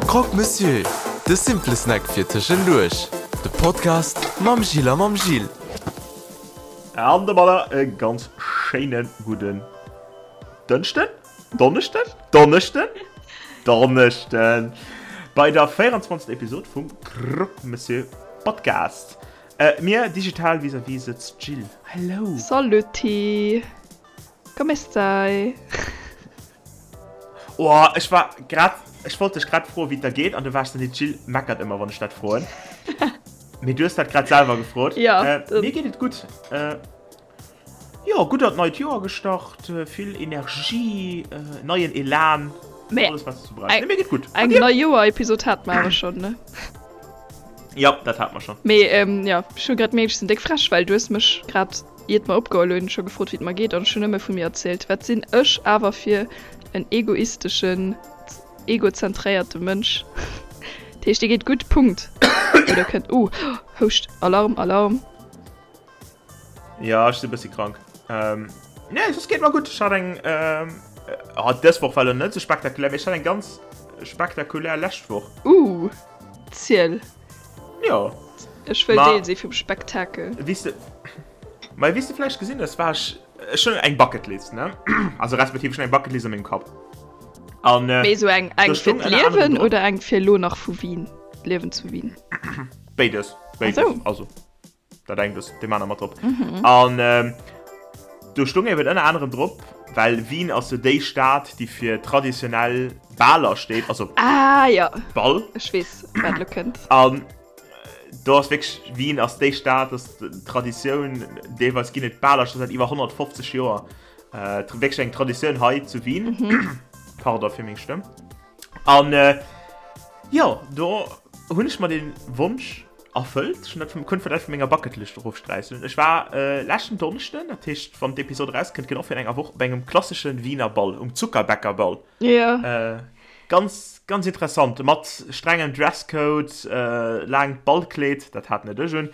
Croque Monsieur, de simple Snack fir tëschenduerch. De Podcast mam Gilles a mam Gilles. An domadder e ganz schéine gudden Dënschden, Donneschden, Donneschden, Donneschden bei der 24. Episod vum Croque Monsieur Podcast. Mir digital vis-à-vis sëtzt d'Jill. Hello! Saluti! Come stai? Oh, ech war grad, ech wollt dech grad froen, wéi et der geet, an du waars dann, d'Jill meckert ëmmer, wann ech dat froen. Mee du hues dat grad selwer gefrot. Ja. Äh, mir geet et gutt. Äh, jo, gutt an d'neit Joer gestart, vill Energie, äh, neien Elan, Mee alles wat s du brauchs. Nee, mir geet gutt. Eng Neijoer-Episod hate mer awer schonn, ne? Ja, dat hate mer schonn. Mee ähm, ja, ech hu grad mierkt, ech sinn déck frech, well du hues mech grad Iert mer opgeholl hunn, scho gefrot wéi et mer geet an ech hunn nëmme vu mir erzielt. Wat sinn ech awer fir en egoisteschen, egozentréierte Mënsch. Dat heescht, dir geet gutt, Punkt. Oder kënnt, uh, Houscht, Alarm, Alarm. Jo, ech sinn e bëssi krank. Nee, soss geet mer gutt. Ech hat eng, oh, dës Woch war elo net esou spektakulär, mee ech hat eng ganz spektakulär lescht Woch. Uh, ziel. Jo. Ech wëll Deel si vum Spektakel. Wéi s de, ma wéi s de vläicht gesinn hues, war ech, ech hunn eng Bucketlist, ne? Also respektiv ech hunn eng Bucketlist a mengem Kapp. An Mee esou eng, eng fir d'Liewen oder eng fir elo nach vu Wien, d'Liewen zu Wien? Béides, béides. Also. Dat engt ass deem aner mat drop. Mhm. An ähm, do stung eben ënner anerem drop, well Wien ass jo déi Stad, déi fir traditionell Baler steet, also ah, ja. Ball. Ech weess, wat lo kënnt. An äh, do ass wierklech, Wien ass déi Stad, ass Traditioun, deelweis ginn et Baler scho säit iwwer 150 Joer. Äh, wierklech eng Traditioun hei zu Wien. Mhm. Pardon fir meng Stëmm. An äh, jo, do hunn ech mer den Wonsch erfëllt. Ech hunn dat vum, konnt dat vun menger Bucketlist erofsträichen. Ech war äh, leschten Donneschden, dat heescht wann d'Episod erauskënnt, genau virun enger Woch, op engem klassesche Wiener Ball, um Zuckerbäckerball. Ja. Äh, ganz, ganz interessant, mat strengem Dresscode, äh, laangt Ballkleed, dat hat net ech un.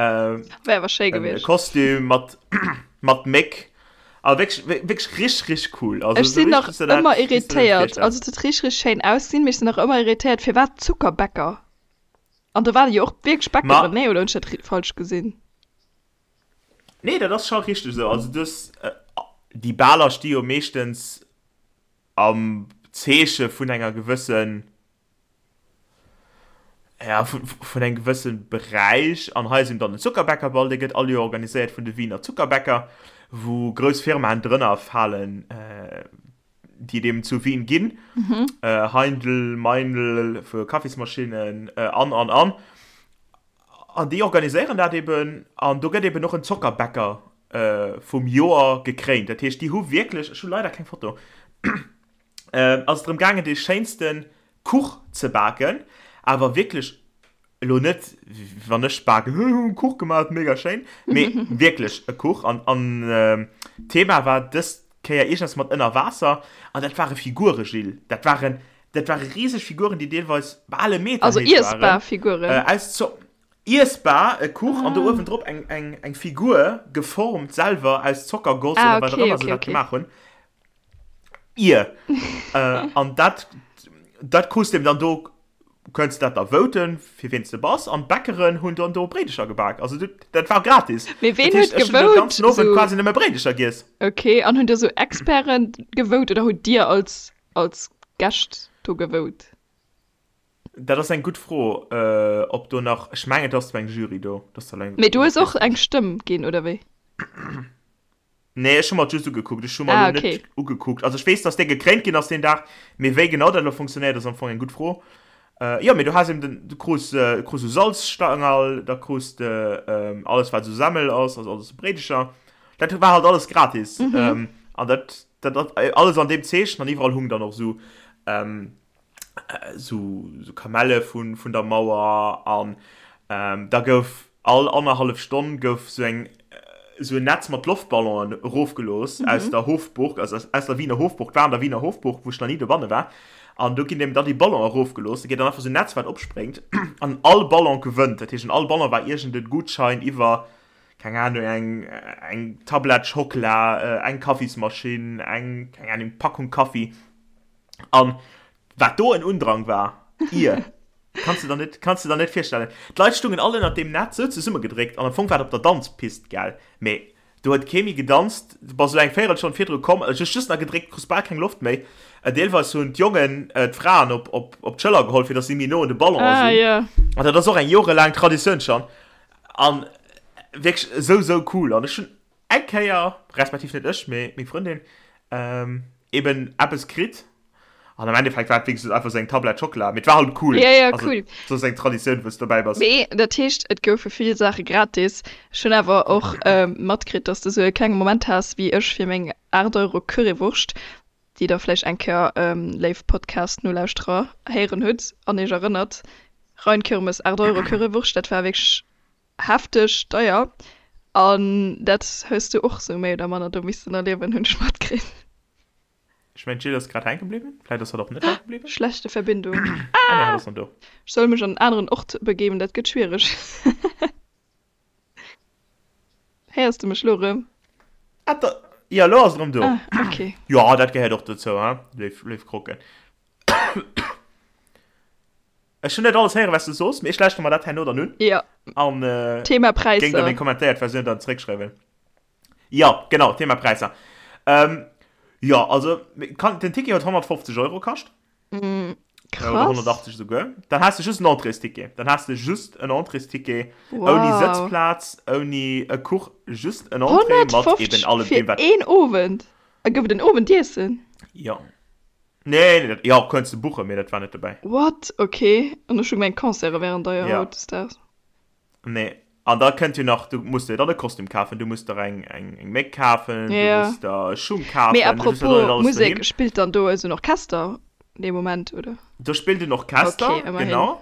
Äh, Wär awer schéi gewiescht. Kostüm mat, mat Méck. Also wierklech, wierklech richtig, richtig cool. Also, ech sinn nach ëmmer irritéiert. Also et huet richtig, richtig schéin ausgesinn, mee ech sinn nach ëmmer irritéiert, firwat Zuckerbäcker? An do waren jo och wierklech Bäckeren, nee? Oder hunn ech dat falsch gesinn? Nee, dat ass scho richteg esou. Also du hues, déi Baler sti jo meeschtens am Zeeche vun enger gewëssen, ja, vun engem gewësse Beräich. An hei ass eben dann den Zuckerbäckerball, dee gëtt all Joer organiséiert vun de Wiener Zuckerbäcker, wou grouss Firmaen drënner falen, déi et eben zu Wien ginn. Heindl, Meinl fir Kaffismaschinnen an, an, an. An déi organiséieren dat eben an do gëtt eben och en Zockerbäcker vum Joer gekréint. Dat heescht, déi hu wierklech, ech hu leider keng Foto, ass et drëm gaangen, dee schéinste Kuch ze baken, awer wierklech elo net, wann ech baken, hu hu Kuch gemaach, mega schéin, mee wierklech e Kuch. An an d'Thema war dës Kéier iergendeppes mat ënner Waasser an dat ware Figure, Gilles, dat waren, dat ware riseg Figuren, déi deelweis bal e Meter Also héich waren, iessbar Figuren? aus Zo iessbar, e Kuch an do uewendrop eng eng eng Figur, geformt selwer aus Zockergoss Ah, oder wat och okay, ëmmer se okay, dat okay. gemaach hunn. Ier. An dat, dat krus de eben dann do, kënns dat da voten, fir ween s de bass. An d'Bäckeren hunn dann do Bréidecher gebak. Also du, dat war gratis. Mee ween Dat heescht, huet ech hunn den gewout? ganzen Owend Sou. quasi nëmme Bréidecher giess. Okay, an hunn do sou Experten gewout oder hutt Dir als, als Gäscht do gewout? Dat ass eng gutt Fro, ob do nach, ech mengen et ass zwar eng Jury do, dass da eng. Mee du hues och eng Stëmm ginn, oder wéi? Nee, ech hu mer et just ugekuckt. Ech hu mer Ah, elo net okay. ugekuckt. Also ech weess, dass dee gekréint ginn ass deen Dag, mee wéi genau dat elo funktionéiert, ass am Fong eng gutt Fro. Äh, jo, mee du has eben den, du krus, äh, krus esou Salzstangerl, da krus de ähm, alles wat esou Semmel ass, also alles esou Bréidecher. Dat war halt alles gratis. Mhm. Ähm, an dat, dat, dat alles an deem Zeechen an iwwerall hung dann och esou ähm, sou Kamelle vun vun der Mauer an da gouf all annerhallef Stonn gouf sou eng sou en Netz mat Loftballonen erofgelooss aus der Hofburg, also aus der Wiener Hofburg, war an der Wiener Hofburg, wou ech nach ni dobanne war, an do ginn eben dann déi Ballonen erofgelooss, da geet dann einfach sou en Netz wat opspréngt an all Ballon gewënnt, dat heescht an all Ballon war iergend e Gutschein iwwer, keng Ahnung, eng eng Tablett Schockela, eng Kaffismaschinn, eng, keng Ahnung, Packung Kaffi. An wat do en Undrang war! Ier. Kanns de der net, kanns de der net virstellen. D'Leit stungen all ënnert deem Netz sou zesummegedréckt an am Fong war et op der Danzpist, gell? Mee do huet kee méi gedanzt. Du bass esou eng Véierelstonn virdru komm, hues just nach gedréckt, krus bal keng Loft méi. Deelweis hunn d'Jongen d'Fraen op, op, op d'Schëller geholl, fir datt si méi no un de Ballon Ah, sinn. jo. An dat ass och eng jorelaang Traditioun schonn. An wierklech esou, esou cool. An ech hunn eng Kéier, respektiv net ech, mee meng Frëndin, eben eppes kritt. An am Endeffekt war et wéi gesot einfach esou eng Tablett Schockela, mee et war halt cool. Ja, ja, Also, cool. et ass eng Traditioun, wou s de dobäi bass. Mee dat heescht, et goufe vill Saache gratis. Ech hunn awer och matkritt, dass de sou e klenge Moment has wéi ech fir meng 8 Euro Currywurscht, déi der vläicht eng Kéier, léif Podcast-Nolauschterer, héieren hutt an iech erënnert, Rheinkirmes, 8 Euro Currywurscht, dat war wierklech hefteg deier. An dat hues du och sou méi oder manner do missten erliewen, hunn ech matkritt. Ech mengen d'Jill ass grad hänke bliwwen. Vläit ass hatt och net hänke bliwwen. Schlechte Verbindung. Ah nee, hatt ass nach do. Ech soll mech an en aneren Ort begeben, dat gëtt schwiereg. Héiers de mech lo rëm? Ah da, jo lo ass et rëm do. Ah, ok. Jo, dat gehéiert och dozou, hein, léif, léif Krocken. Ech hunn net alles héieren, wat s du soos, mee ech lauschteren mer dat herno dann un. Jo. An Thema géing der Präisser. meng kommentéiert Versioun dann zeréckschreiwen. Jo, genau, Thema Präisser. Ähm, jo, also kann, den Ticket huet 150 Euro kascht. Mm, Oder krass. 180 souguer. Dann has de just en Entréesticket. Dann has de just en Entréesticket ouni Wow. Sëtzplaz, ouni e Kuch, just en Entrée mat eben 150 allem fir deem, wat. een Owend? A gouf et en Owendiessen? Jo. Nee, nee, dat, jo, kënns de buchen, mee dat war net dobäi. What? Okay. An ech hu gemengt, Concerte wären deier Ja. hautdesdaags. Nee. An da kënnt jo nach, du musst der dann e Kostüm kafen, du musst der eng, eng, eng Méck kafen, du Ja. musst der Schung Mee kafen, du hues jo dann net apropos alles Musek, doheem. spillt dann do esou en Orchester dee Moment, oder? Do spillt en Orchester, Okay, ëmmerhin. genau.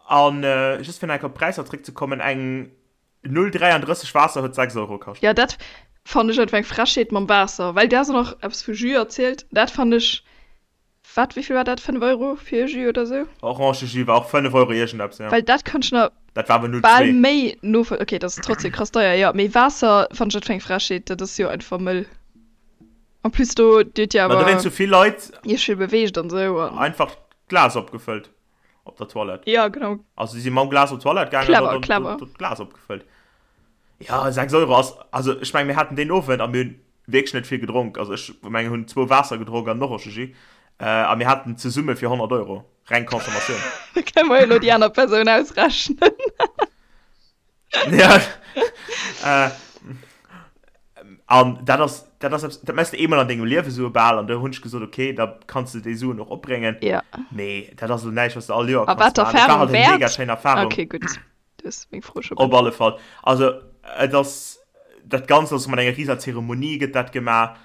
An just fir nach eng Kéier op d'Präisser zréckzekommen, eng 0,33 Waasser huet 6 Euro kascht. Jo, dat fannen ech einfach eng Frechheet mam Waasser, well du has och nach eppes vu Jus erzielt, dat fannen ech Wat, wéivill war dat? 5 Euro fir e Jus oder sou? Orangejus war och 5 Euro iergendeppes, ja. Well dat kann ech nach Dat war awer 0,2. bal méi novoll-, ok, dat ass trotzdem krass deier, jo, mee Waasser fannen ech dat fir eng Frechheet, dat ass jo einfach mëll. En plus do, dir hutt jo Ma do awer wéinst sou vill Leit iech vill beweegt an sou an. einfach d'Glas opgefëllt op der Toilette. Jo, genau. Also si si mam Glas op d'Toilette gaangen an Clever, dann clever. do d'Glas opgefëllt. Ja, 6 Euro ass, also ech meng mir haten deen Owend a mir hunn wierklech net vill gedronk, also ech mengen hunn zwou Waasser gedronk an en Orangejus a mir haten zesumme fir 100 Euro, reng Consommatioun. Da kënne mer jo elo déi aner Persoun ausrechnen. Ja, an dat ass, dat ass eppes, dat mess de eemol an dengem Liewe sou bal an do hunn ech gesot, okay, da kanns de déi Suen och opbréngen. Ja. Mee dat ass elo näischt, wat s de all Joer A kanns wat maachen. Et war d'Erfarung halt eng mega wäert? schéin Erfarung. Okay, gutt. Du hues meng Fro scho Op beäntwert. alle Fall. Also et ass dat Ganzt ass mat enger riser Zeremonie gëtt dat gemaach.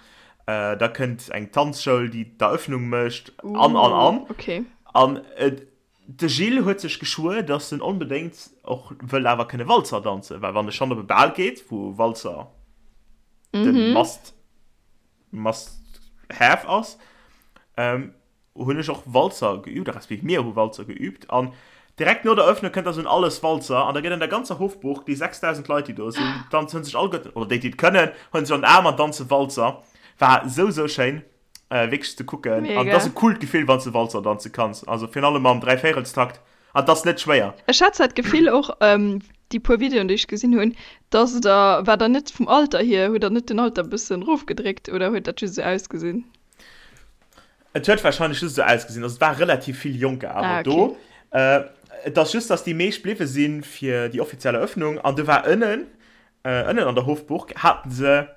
Äh, da kënnt eng Tanzschoul, déi d'Eröffnung mécht an an Uh, an. okay. An et, de Gilles huet sech geschwuer, datt en onbedéngt och wëll awer kënne Walzer danzen, well wann e schonn op e Bal geet, wou Walzer de Mhm. Must, must have ass, ähm, hunn ech och Walzer geübt, respektiv mir hu Walzer geübt an direkt no der Eröffnung kënnt da sou en alles Walzer an da gëtt an der ganzer Hofburg, déi 6.000 Leit déi do sinn, danzen, hunn sech alleguerten, oder déi déi et kënnen, hunn sech an den Aarm an danze Walzer. War sou sou schéin wierklech ze kucken an et ass Mega. e coolt Gefill wann s de Walzer danze kanns, also virun allem am Dräivéierelstakt an et ass net schwéier. Ech hat zwar d'Gefill och, déi puer Videoen déi ech gesinn hunn, dass der, war der net vum Alter hier, hutt der net den Alter e bëssen erofgedréckt oder huet dat just esou ausgesinn? Et huet wahrscheinlech just esou ausgesinn. Also et war relativ vill Jonker awer Ah, okay. do. Äh, et ass just, dass déi meescht bliwwe si fir déi offiziell Eröffnung. An do war ënnen, äh, ënnen an der Hofburg haten se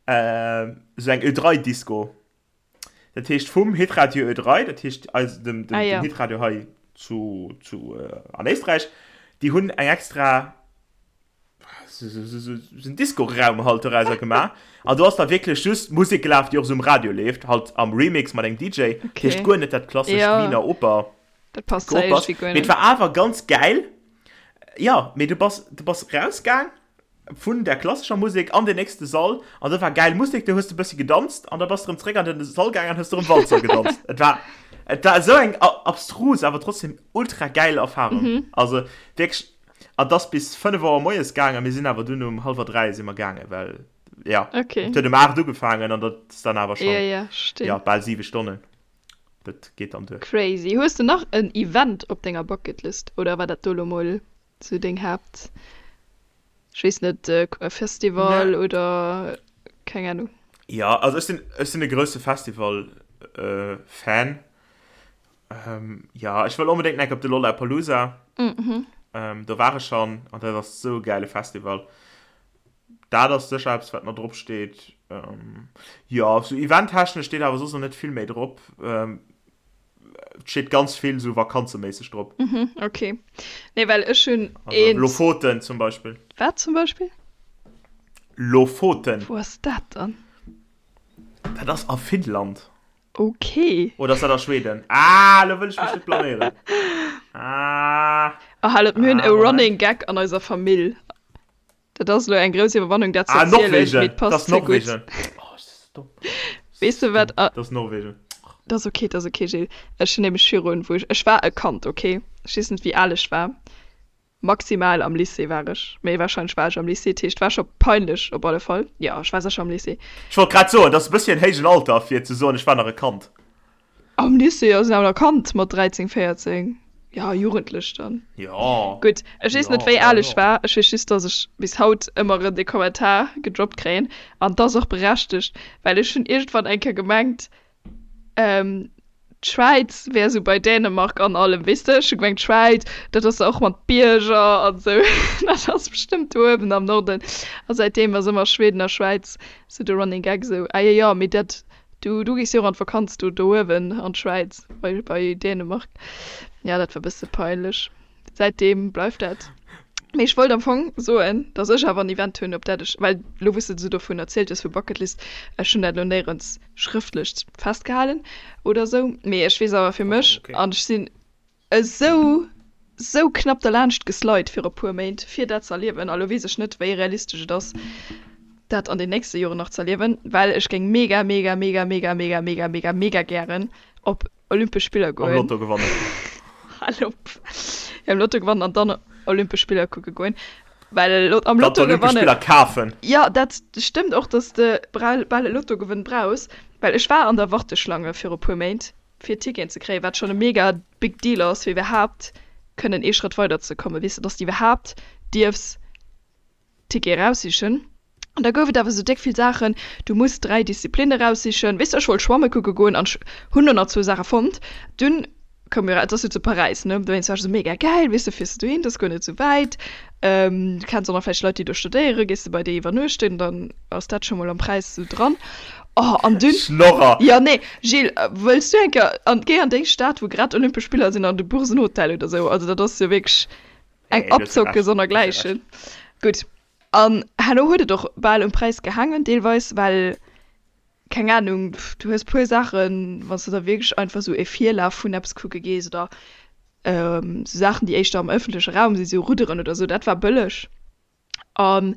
äh, esou eng Ö3-Disco. Dat heescht vum Hitradio Ö3, dat heescht eis, dem, dem, Ah, dem ja. Hitradio hei zu, zu, äh, an Éisträich, déi hunn eng extra en Disco-Raum halt dorauser gemaach. An do ass da wierklech just Musek gelaf, déi och esou um Radio leeft, halt am Remix mat engem DJ. Okay. Heescht guer net dat klassescht Ja. Wiener Oper. Dat passt zwar Geopers. iergendwéi guer Mee et net. war awer ganz gäil. Ja, mee du bass, du bass rausgaang vun der klassescher Musek an den nächste Sall an do war gäil Musek, do hues de bëssi gedanzt an da bass de rëm zréck an den Sall gaang an hues de rëm Walzer gedanzt. Et war, et war esou eng abstrus, awer trotzdem ultra gäil Erfahrung. Mhm. Also wierklech An 't ass bis 5 Auer moies gaangen, a mir sinn awer dunn um hallwer 3 si mer gaangen, well ja, Okay. et huet um 8 ugefaangen an dat ass dann awer Ja, schonn, ja, verstinn. ja, bal 7 Stonnen. Dat geet dann duer. Crazy. Hues de nach en Event op denger Bucketlist oder war dat do lo mol sou deng Haapt, ech weess net, e Festival oder keng Ahnung? Jo, also ech sinn, ech sinn e grousse Festival Fan. Jo, ech wëll onbedéngt nach op de Lollapalooza. Do war ech schonn an dat ass sou e gäile Festival. Dat ass sécher eppes, wat nach drop steet. Jo, sou eventtechnesch steet awer soss nach net vill méi drop. Et steet ganz vill sou vakanzeméisseg drop. Mhm, ok. Nee, well ech hunn eent. Lofoten zum Beispill. Wat zum Beispill? Lofoten. Wou ass dat dann? Dat ass a Finnland. Ok. Oder ass dat a Schweden? Ah, elo wëll ech mech net blaméieren. Ah. Oh, hal op, mir hunn e Running Gag an eiser Famill. Dat ass elo eng grouss Iwwerwannung, dat ze Ah, erzielen, Norwegen! mee et Dat passt ass ze gutt. Norwegen. Oh, ech si sou domm. Weess de wat a. Dat ass Norwegen. Dat ass ok, dat ass ok, Gilles. Ech hunn nämlech virun, wou ech, ech war e Kand, ok? Ech weess net, wéi al ech war. Maximal am Lycée war ech, mee warscheinlech war ech am Lycée, dat heescht, war scho peinlech op alle Fall. Jo, ech war sécher am Lycée. Ech wollt grad soen, dat ass e bësschen héijen Alter, fir ze soen, ech war nach e Kand. Am Lycée ass een awer nach Kand mat 13, 14, jo Jugendlech dann. Jo. Gutt, ech weess net wéi al ech war, ech weess just dass ech bis haut ëmmer erëm dee Kommentar gedroppt kréien an 't ass och berechtegt, well ech hunn iergendwann eng Kéier gemengt d'Schwäiz wär esou bei Dänemark an allem, weess de, ech hu gemengt d'Schwäiz dat ass och mat Bierger an esou, dat ass bestëmmt do uewen am Norden a säitdeem ass ëmmer Schweden a Schwäiz esou de Running Gag esou, ah jo jo mee dat Du, du gees jo och an d'Vakanz do, do uewen an d'Schwäiz, bei, bei Dänemark. Ja, dat war bësse peinlech. Säitdeem bleift dat. Mee ech wollt am Fong soen, dass ech awer en Event hunn, op dat ech, well lo wou s de esou dovun erzielt hues, vu Bucketlist, ech hunn dat elo néierens schrëftlech festgehalen oder esou, mee ech weess awer fir mech, an ech sinn Esou, sou knapp derlaanscht geslide viru puer Méint, fir dat ze erliewen. A lo weess ech net, wéi realistesch et ass, dat an den nächste Joren nach ze erliewen, well ech géing mega, mega, mega, mega, mega, mega, mega, mega gären op Olympesch Spiller Am goen. Lotto gewannen. Hal op. Jo, am Lotto gewannen an dann Olympesch Spiller kucke goen. Well am Dann Lotto d'Olympesch gewannen. Spiller kafen. Jo, dat stëmmt och, dass de bal e Lottogewënn brauchs, well ech war an der Warteschlange viru puer Méint. fir Ticketen ze kréien, wat schonn e mega big deal ass, fir iwwerhaapt kënnen ee Schrëtt weider ze kommen, weess de, dass de iwwerhaapt dierfs Ticket eraussichen. An da gouf et awer esou déck vill Saachen, du muss 3 Disziplinne eraussichen, weess de, ech wollt schwamme kucke goen an ech hunn do nach zwou Saache fonnt. Dunn koum jo, et ass jo zu Paräis, ne, dowéinst war ech esou mega gäil, weess de, fiers de dohin, dat ass guer net esou wäit, du kenns och nach vläicht Leit, déi do studéieren, gees de bei déi iwwernuechten, dann ass dat scho mol am Präis esou dran. Oh, an dunn. Schnorrer! Jo, nee, Gilles, wëlls du eng Kéier an, géi an déi Stad, wou grad Olympesch Spiller sinn, an du buchs en Hotel oder sou. Also dat ass jo wierklech eng Nee, du hues jo Abzocke Recht, du hues jo sonnergläichen. Recht. Gutt, an herno huet et och bal um Präis gehaangen, deelweis, well, keng Anung, du hues puer Saachen, wann s de da wierklech einfach sou e Virlaf vun eppes kucke gees oder sou Saachen, déi éischter am ëffentleche Raum sinn, sou Rudderen oder sou, dat war bëlleg. An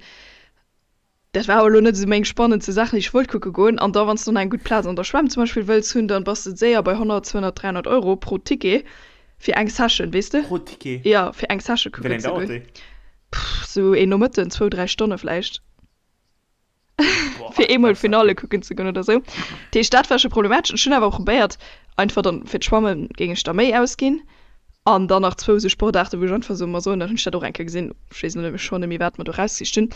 dat war awer elo net esou meng spannendste Saachen, déi ech wollt kucke goen. An da wann s de dann eng gutt Plaz an der Schwämm zum Beispill wëlls hunn, dann bass de séier bei 100, 200, 300 Euro pro Ticket fir eng Session, weess de? Pro Ticket? Jo, fir eng Session Wéi kucken laang ze dauert goen. déi? Pff, sou een Nomëtten, zwou, dräi Stonne vläicht. Boah, Fir eemol dat ass Finale heftig. kucken ze goen oder sou. Dat heescht, dat war scho problematesch. Ech hunn awer probéiert, einfach dann fir d'Schwamme géing ech da méi ausginn. An dann nach zwou sou Sportaarten, wou ech einfach sou mer soen, dann hunn ech dat och eng Kéier gesinn, ech weess elo net méi schonn net méi wat mer do rausgesicht hunn.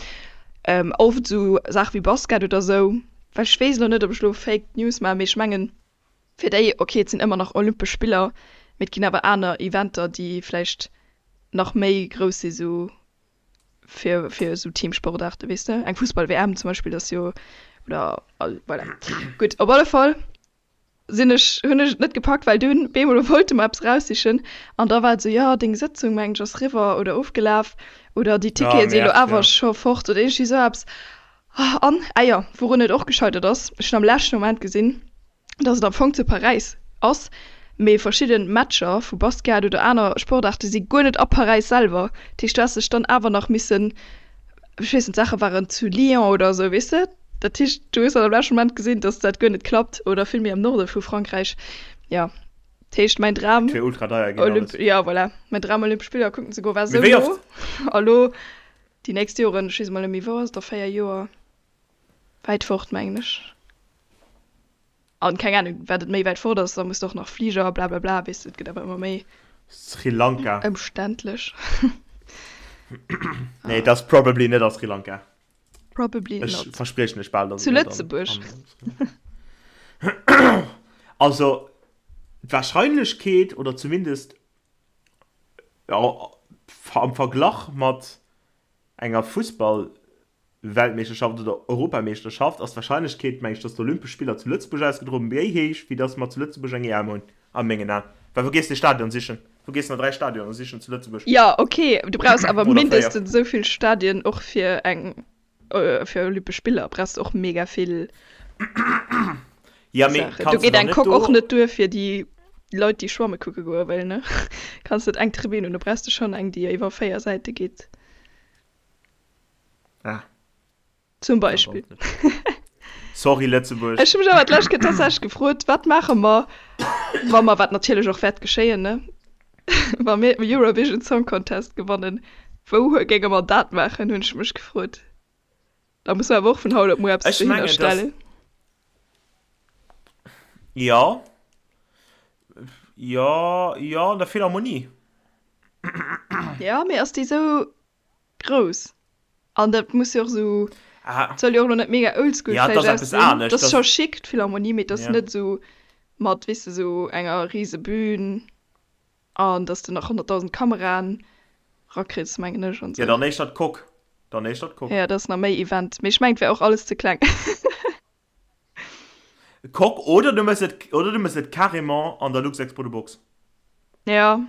Oft sou Saache wéi Basket oder sou, well ech weess elo net, ob ech elo Fake News maachen, mee ech mengen fir déi, ok et sinn ëmmer nach Olympesch Spiller, mee et ginn awer aner Eventer, déi vläicht nach méi grouss si sou fir fir esou Teamsportaarte, weess de, eng Fussball-WM zum Beispill ass jo, oder voilà. Gutt, op alle Fall sinn ech, hunn ech et net gepackt, well dunn bemol wollte mer eppes eraussichen an da war et esou, jo deng Sëtzung mengen ech ass riwwer oder ofgelaf oder déi Ah, Tickete sinn elo Merde, awer ja. scho fort oder iergendwéi esou eppes. An, ah jo, wourun et och gescheitert ass, ech hunn am leschte Moment gesinn, dass et am Fong zu Paräis ass, mee verschidde Matcher vu Basket oder aner Sportaarte si guer net a Paräis selwer. Dat heescht, du häss dech dann awer nach missen, ech weess net, d'Saache waren zu Lyon oder esou, weess de? Dat heescht, du hues dann am leschte Moment gesinn, dass dat guer net klappt oder vill méi am Norde vu Frankräich. Jo, dat heescht, mäin Dram, Et wier ultra deier ginn Olymp, alles. jo, voilà, mäin Dram Olympesch Spiller kucken ze goen, war Mee esou wéi no. oft? A lo déi nächst Joren, ech weess emol net méi, wou ass et, a 4 Joer? Wäit fort, mengen ech. An keng Ahnung, wat et méi wäit fort ass, da muss de och nach Fliger, blablabla, weess de, et gëtt awer ëmmer méi. Sri Lanka. Ëmständlech. Nee, et ass probably net a Sri Lanka. Probably not. Ech verspriechen lech bal, dass et net an. Zu Lëtzebuerg. Also, d'Wahrscheinlechkeet, oder zumindest am Verglach mat enger Fussball-Weltmeeschterschaft oder Europameeschterschaft, ass d'Wahrscheinlechkeet, meng ech, dass d'Olympesch Spiller zu Lëtzebuerg ausgedroen méi héich, wéi dass mer zu Lëtzebuerg eng EM hunn, a mengen Aen. Well wou gees de Stadion sichen? Wou gees de nach 3 Stadioner sichen zu Lëtzebuerg? Jo, ok, du brauchs awer mindestens esou vill Stadien och fir eng fir Olympesch Spiller brauchs de och mega vill Ja, mee Saachen. Do kanns de geet dann eng net Coque och do. net duer fir déi Leit, déi schwamme kucke goe wëllen, ne? Kanns net eng Tribün hunn, do brauchs de schonn eng, déi iwwer 4 Säite geet. Ah. Zum Beispill. Sorry Lëtzebuerg. Ech hu mech awer d'lescht Kéier tatsächlech gefrot, wat maache mer, wa mer, wat natierlech och wäert geschéien, ne, wa mir den Eurovision Song Contest gewannen, wou géinge mer dat maachen, hunn ech mech gefrot. Da musse mer awer och vun haut op muer eppes Ech dohinner mengen, dass. stellen. Jo. Jo, jo, an der Philharmonie. Jo, mee ass déi sou grouss? An dat muss jo och sou, Ah. soll jo och lo net mega oldschool Ja, et vläicht ass eppes aussinn. anescht. Dat ass Dat scho chic, d'Philharmonie, mee et ass ja. net sou mat, weess de, sou enger rise Bühn an dass de nach 100.000 Kameraen rakriss, mengen ech, an Ja, sou. dann éischter d'Coque. Dann éischter d'Coque. Ja, dat ass nach méi Event. Mee ech mengen, et wär och alles ze kleng. Coque oder du méchs et, oder du méchs et carrément an der Luxexpo de Box. Ja.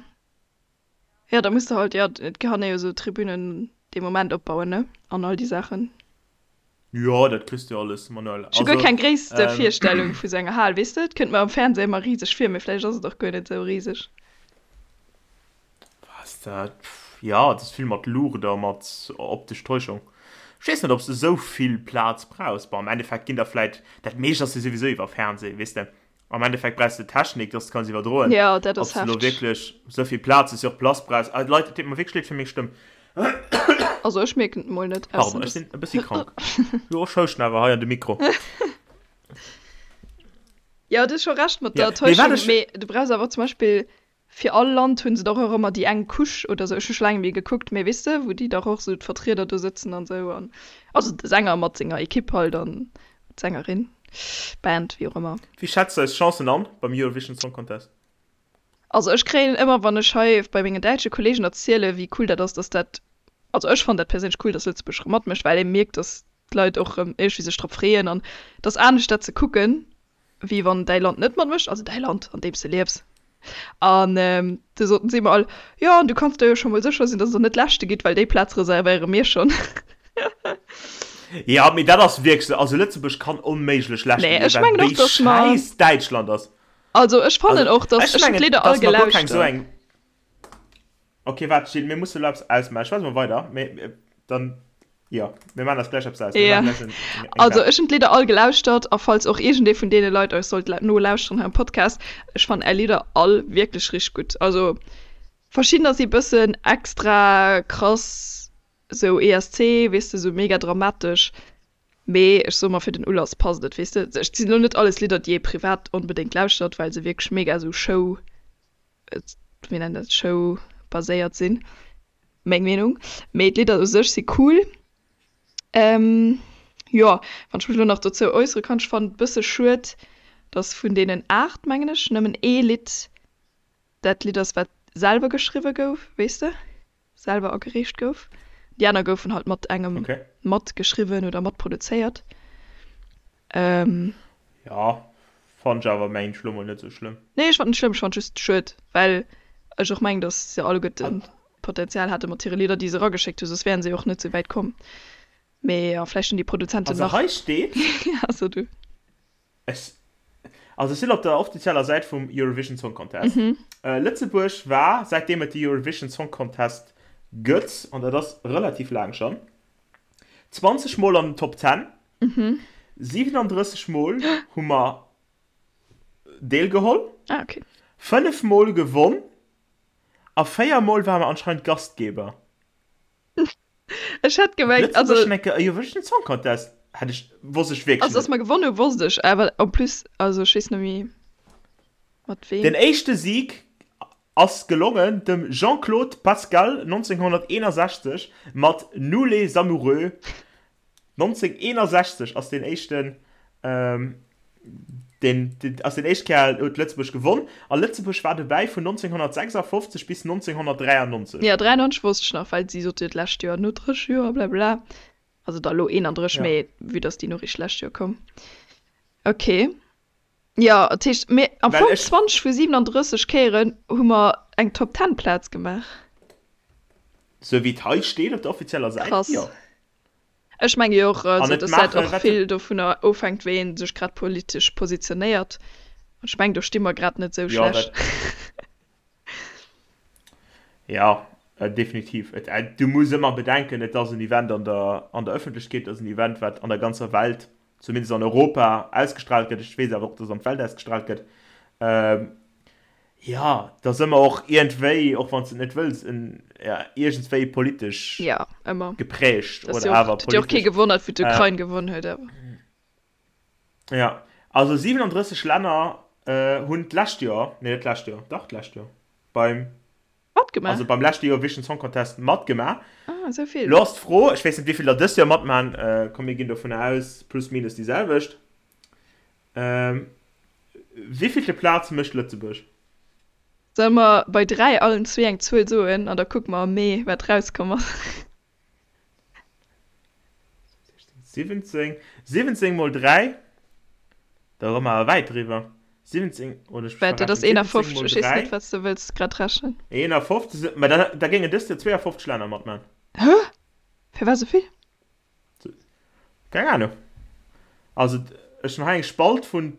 Jo, da muss de halt, jo, et kann ee jo sou Tribünen dee Moment opbauen, ne, an all déi Saachen. Jo, dat kriss de jo alles manuell. Ech hu guer Also, keng gréisste ähm. Virstellung vu sou enger Hal, weess de, et kënnt mer am Fernseh ëmmer riseg vir, mee vläicht ass et och guer net sou riseg. Was dat? Jo, et ass vill mat Luucht a mat optesch Täuschung. Ech weess net, ob s de sou vill Plaz brauchs. Bon, am Endeffekt ginn der vläit, dat meescht ass jo souwisou iwwer Fernseh, weess de. Am Endeffekt brauchs de Technik, dass de kanns iwwerdroen. Ja, dat Ob ass s de elo hefteg. wierklech esou vill Plaz hues, jo och Place brauchs. Ah, Leit, et deet mer wierklech leed fir meng Stëmm. Also ech mierken et mol net, ausser Pardon, ech dass. sinn e bëssi krank. Jo, ech houschten awer hei an de Mikro. Jo, du hues scho Recht mat Ja, der mee wat Täuschung, ech. mee du brauchs awer zum Beispill fir all Land hu se dach och ëmmer déi eng Couche oder sou, ech hu scho laang net méi gekuckt, mee weess de, wou déi dach och sou d'Vertrieder do sëtzen an sou an also de Sänger mat senger Ekipp halt an d'Sängerin, Band, wéi och ëmmer. Wéi schätz du eis Chancen an beim Eurovision Song Contest? Also ech kréien ëmmer wann ech hei bei mengen däitsche Kollegen erziele wéi cool dat ass, dass dat, also ech fannen dat perséinlech cool, dass Lëtzebuerg erëm matmécht, well ee mierkt, dass d'Leit och erëm iergendwéi sech drop freeën an et ass anescht dat ze kucken, wéi wann däi Land net matmécht, also däi Land, an deem s de liefs. An du soten si mer all, Jo, an du kanns der jo scho mol sécher sinn, dass der net Leschte gitt, well déi Plaz reservéiere mir schonn. Jo, mee dat ass wierklech esou. Also Lëtzebuerg kann onméiglech Leschte Nee, ginn, ech well mengen och, wéi dass mer, schäiss Däitschland ass. also ech fannen Also och, dass, ech ech hunn mengen, d'Lidder all dass mer guer keng esou gelauschtert. eng. Ok, waart, Jill, mir musse elo eppes ausmaachen. Ech schwätze mol weider, mee dann Jo, mir maachen eis gläich eppes aus. Mir Ja. maachen gläich en, eng, eng Also Wett. ech hunn d'Lidder all gelauschtert a falls och iergendee vun deene Leit eis sollt la nolauschteren hei am Podcast, ech fannen är Lidder all wierklech richteg gutt. Also verschiddener si bëssen extra krass, sou ESC, weess de, sou mega dramatesch, mee ech soe mer fir den Ulass passt et, weess de. Et sinn elo net alles Lidder déi ee privat onbedéngt lauschtert, well se wierklech mega sou Show, wéi nennt dat, Show baséiert sinn. Meng Meenung. Mee d'Lidder u sech si cool. Ähm, jo, wann ech mech elo nach dozou äussere kann, ech fannen et bësse schued, dass vun deenen 8, mengen ech, nëmmen ee Lidd dat Lidd ass, wat selwer geschriwwe gouf, weess de, selwer agereecht gouf. Déi aner goufen halt mat engem Okay. matgeschriwwen oder matproduzéiert. Ähm. Ja, fannt ech awer mengen ech lo mol net sou schlëmm. Nee, ech fand net schlëmm, ech fand just schued, well ech och mengen, dass se alleguerten Potenzial hate mat hire Lidder, déi se erageschéckt hu, soss wären se jo och net sou wäit komm. Mee jo, vläicht hunn déi Produzenten Also nach. hei steet. Ja, so du. Ech, also ech sinn op der offizieller Säit vum Eurovision Song Contest. Lëtzebuerg war, säitdeem et de Eurovision Song Contest gëtt, an dat ass relativ laang schonn, 20 Mol an den Top 10. 37 Mol hu mer deelgeholl, Ah, okay. 5 Mol gewonn a 4 Mol ware mer anscheinend Gastgeber. Ech hätt gemengt, also. Lëtzebuerg huet eng Kéier e Eurovision Song Contest. Hätt ech, wosst ech wierklech Also, dass net. mer gewonnen hu wosst ech, awer en plus, also ech weess net méi mat Den weem. éischte Sieg ass gelongen dem Jean-Claude Pascal 1961 mat Nous les amoureux. 1961 ass deen éischten, deen ass deen éischt Kéier huet Lëtzebuerg gewonn a Lëtzebuerg war dobäi vun 1956 bis 1993. Jo, 93 wosst ech nach, well si sot jo d'lescht Joer no 30 Joer blabla. Also da lo 31, Ja. mee vue dass déi Noriicht d'lescht Joer koum. Ok. Jo, dat heescht, mir am Well Fong ech. 20 vu 37 Kéieren hu mer eng Top Ten Plaz gemaach. Sou wéi et hei steet op der offizieller Säit, Krass. jo. Ech menge jo och, An also et dass dat maache och wat. vill dovunner ofhänkt, wéi ee sech grad politesch positionéiert. An ech meng, do sti mer grad net sou Jo, schlecht. dat. Jo, definitiv. Et, du muss ëmmer bedenken, et ass en Event an der, an der Ëffentlechkeet, et ass en Event, wat an der ganzer Welt, zumindest an Europa, ausgestrahlt gëtt. Ech weess awer och, dass an d'Welt ausgestrahlt gëtt. Jo, et ass ëmmer och iergendwéi, och wann s de et net wëlls, en, ja, iergendswéi politesch Jo, ëmmer. geprägt Et ass oder jo och, awer et huet jo och kee politesch. gewonnert, wou d'Ukrain gewonn huet, awer. Jo, also 37 Länner hunn d'lescht Joer, nee net d'lescht Joer, dach d'lescht Joer, beim, Matgemaach? also beim leschte Eurovision Song Contest matgemaach. Ah, esou vill. Lo ass d'Fro, ech weess net wéi vill der dëst Joer matmachen, komm mir ginn dovunner aus plus minus déi selwecht, wéivillte Plaz mécht Lëtzebuerg? Solle mer bei 3 allen zwee eng Zuel soen an da kucke mer am Mee wat rauskomm ass? 17, 17 mol 3, da komme mer awer wäit driwwer. 17, oder ech Wat, dat ass verrechnen, 17 51, mol ech weess 3. net, wat s de wëlls grad rechnen. 51, mä da, da géingen dëst Joer 52 Länner matman. Hä? Firwat esou vill? Keng Ahnung. Also, ech hunn hei eng Spalt vun,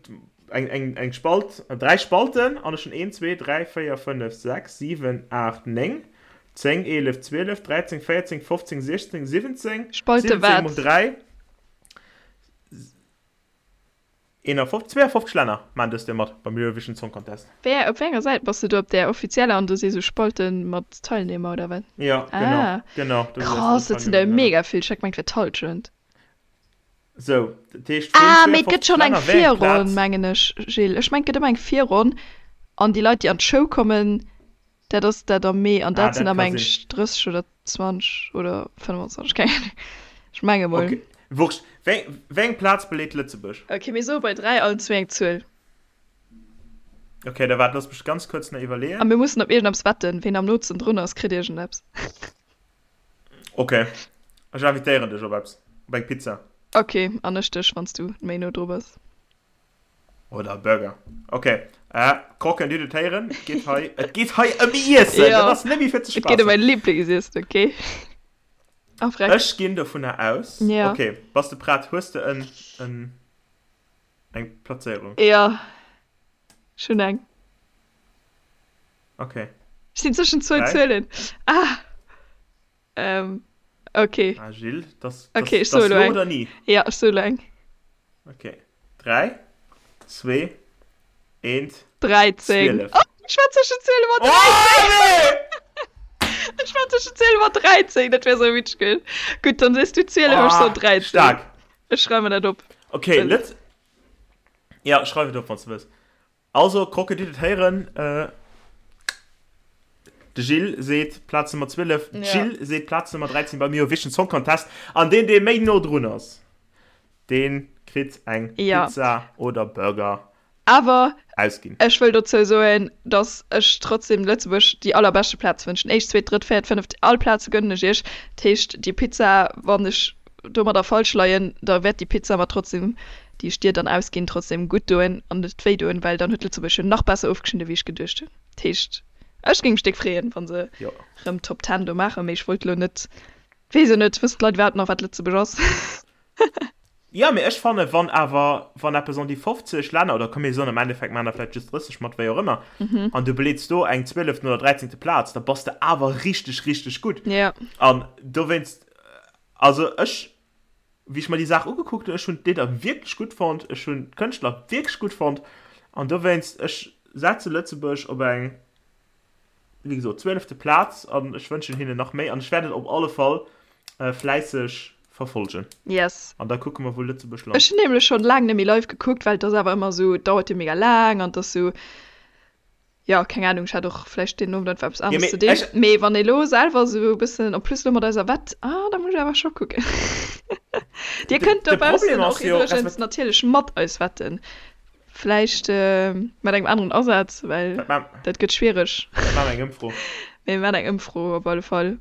eng, eng, eng Spalt, dräi Spalten an ech hunn 1, 2, 3, 4, 5, 6, 7, 8, 9, 10, 11, 12, 13, 14, 15, 16, 17, Spalte 17 wat? mol 3, 51, 52 Länner maachen dëst Joer mat beim Eurovision Song Contest. Wéi, op wéi enger Säit bass de do? Op där offizieller an do si sou Spalte mat Teilnehmer oder wat? Ja, genau, Ah, genau, do si krass, dat sinn der Teilnehmer, genau. mega vill. Ech hat gemengt, et wär d'Hallschent. Sou, dat heescht vun Ah, mee et gëtt 52 schonn eng Länner, wéi eng Virronn, Plaz? mengen ech, Gilles. Ech mengen, et gëtt ëmmer eng Virronn an déi Leit, déi an d'Show kommen, Dat ass dat am Mee an Ah, dat sinn dat am ka eng sinn. 30 oder 20 oder 25, keng Ahnung. Ech menge mol. Ok, wurscht. Wéi, wéi eng Plaz beleet Lëtzebuerg? Ok, mir soe bei 3 allen zwee eng Zuel. Ok, da waart, looss mech ganz kuerz nach A iwwerleeën. mir mussen op iergendeppes wetten. Ween am nootsten drun ass, kritt iergendeppes. Ok, ech invitéieren dech op eppes, op eng Pizza. Ok, an ech dech, wann s du méi no dru bass. Oder Burger. Ok, äh, Croquen, Dir hutt et héieren, et geet hei, et geet hei ëm Iessen! Jo, Dat ass net méi fir ze et geet ëm spaassen. mäin Liblingsessen, ok? A freck. Ech ginn dovunner aus. Ja. Ok, bass de prett? Hues de en, en, eng Plazéierung? Jo, ech hunn eng. Ok. Ech sinn zwëschen zwou 3. Zuelen. Ah! Ähm, ok. Ah, Gilles, das, Ok, das, ech soe das lo lo eng. oder nie? Ja, ech soe lo eng. Ok. 3, 2, 1, 13. 12. Oh, ech war zwëschen 12 an 13. Oh, nee! Ech war zwëschen 12 an 13, dat wär sou witzeg gewiescht. Gutt, dann sees du 12, ech soen Oh, 13. stark. Ech schreiwe mer dat op. Ok, Well. Lëtz. Ja, schreif et op, wann s du wëlls. Also, Krocke, Dir hutt et héieren, de Gilles seet Plaz Nummer 12, d'Jill seet Plaz Nummer 13 beim Eurovision Song Contest. An deen, dee méi no drun ass, dee kritt eng Pizza oder Burger Awer ausginn. ech wëll dozou soen, dass ech trotzdem Lëtzebuerg déi allerbeschte Plaz wënschen. Éischt, zweet, drëtt, véiert, fënneft, all Plaze gönnen ech iech. Dat heescht, déi Pizza, wann ech domadder falsch leien, da wäert déi Pizza mer trotzdem déi ech dir dann ausginn, trotzdem gutt doen an net wéi doen, well dann huet Lëtzebuerg jo nach besser ofgeschnidden, wéi ech geduecht hunn. Dat heescht, ech géing mech déck freeën, wa se Jo. rëm Top Ten do maachen, mee ech wollt elo net, weess jo net, wëssen d'Leit iwwerhaapt nach, wat Lëtzebuerg ass? Jo, mee ech fannen, wann awer, wann eppes an déi 50 Länner, oder komm mir soen am Endeffekt maachen der vläicht just 30 mat, wéi och ëmmer, an du beleets do eng zwieleften oder dräizéngte Plaz, da bass de awer richteg, richteg gutt. Jo. An dowéinst, also ech Wéi ech mer déi Saach ugekuckt hunn, ech hunn d'Lidder wierklech gutt fonnt, ech hunn d'Kënschtler wierklech gutt fonnt an dowéinst, ech setze Lëtzebuerg op eng, wéi gesot, zwielefte Plaz an ech wënschen hinnen nach méi an ech wäert et op alle Fall fläisseg Verfolgen. Yes. An da kucke mer wou Lëtzebuerg lant. Ech hunn nämlech schonn laang net méi live gekuckt, well et ass awer ëmmer esou, et dauert jo mega laang an et ass esou, jo keng Ahnung, ech hat och vläicht deen Owend einfach eppes aneres ze dinn. Mee wann ee lo selwer esou e bëssen, en plus lo mat eiser Wett, ah da muss ech awer scho kucken. Dir kënnt dobaussen och iwwregens natierlech mat eis wetten, vläicht mat engem aneren Asaz, well dat gëtt schwiereg. Dat maache mer eng Ëmfro. Mee mir maachen eng Ëmfro op alle Fall.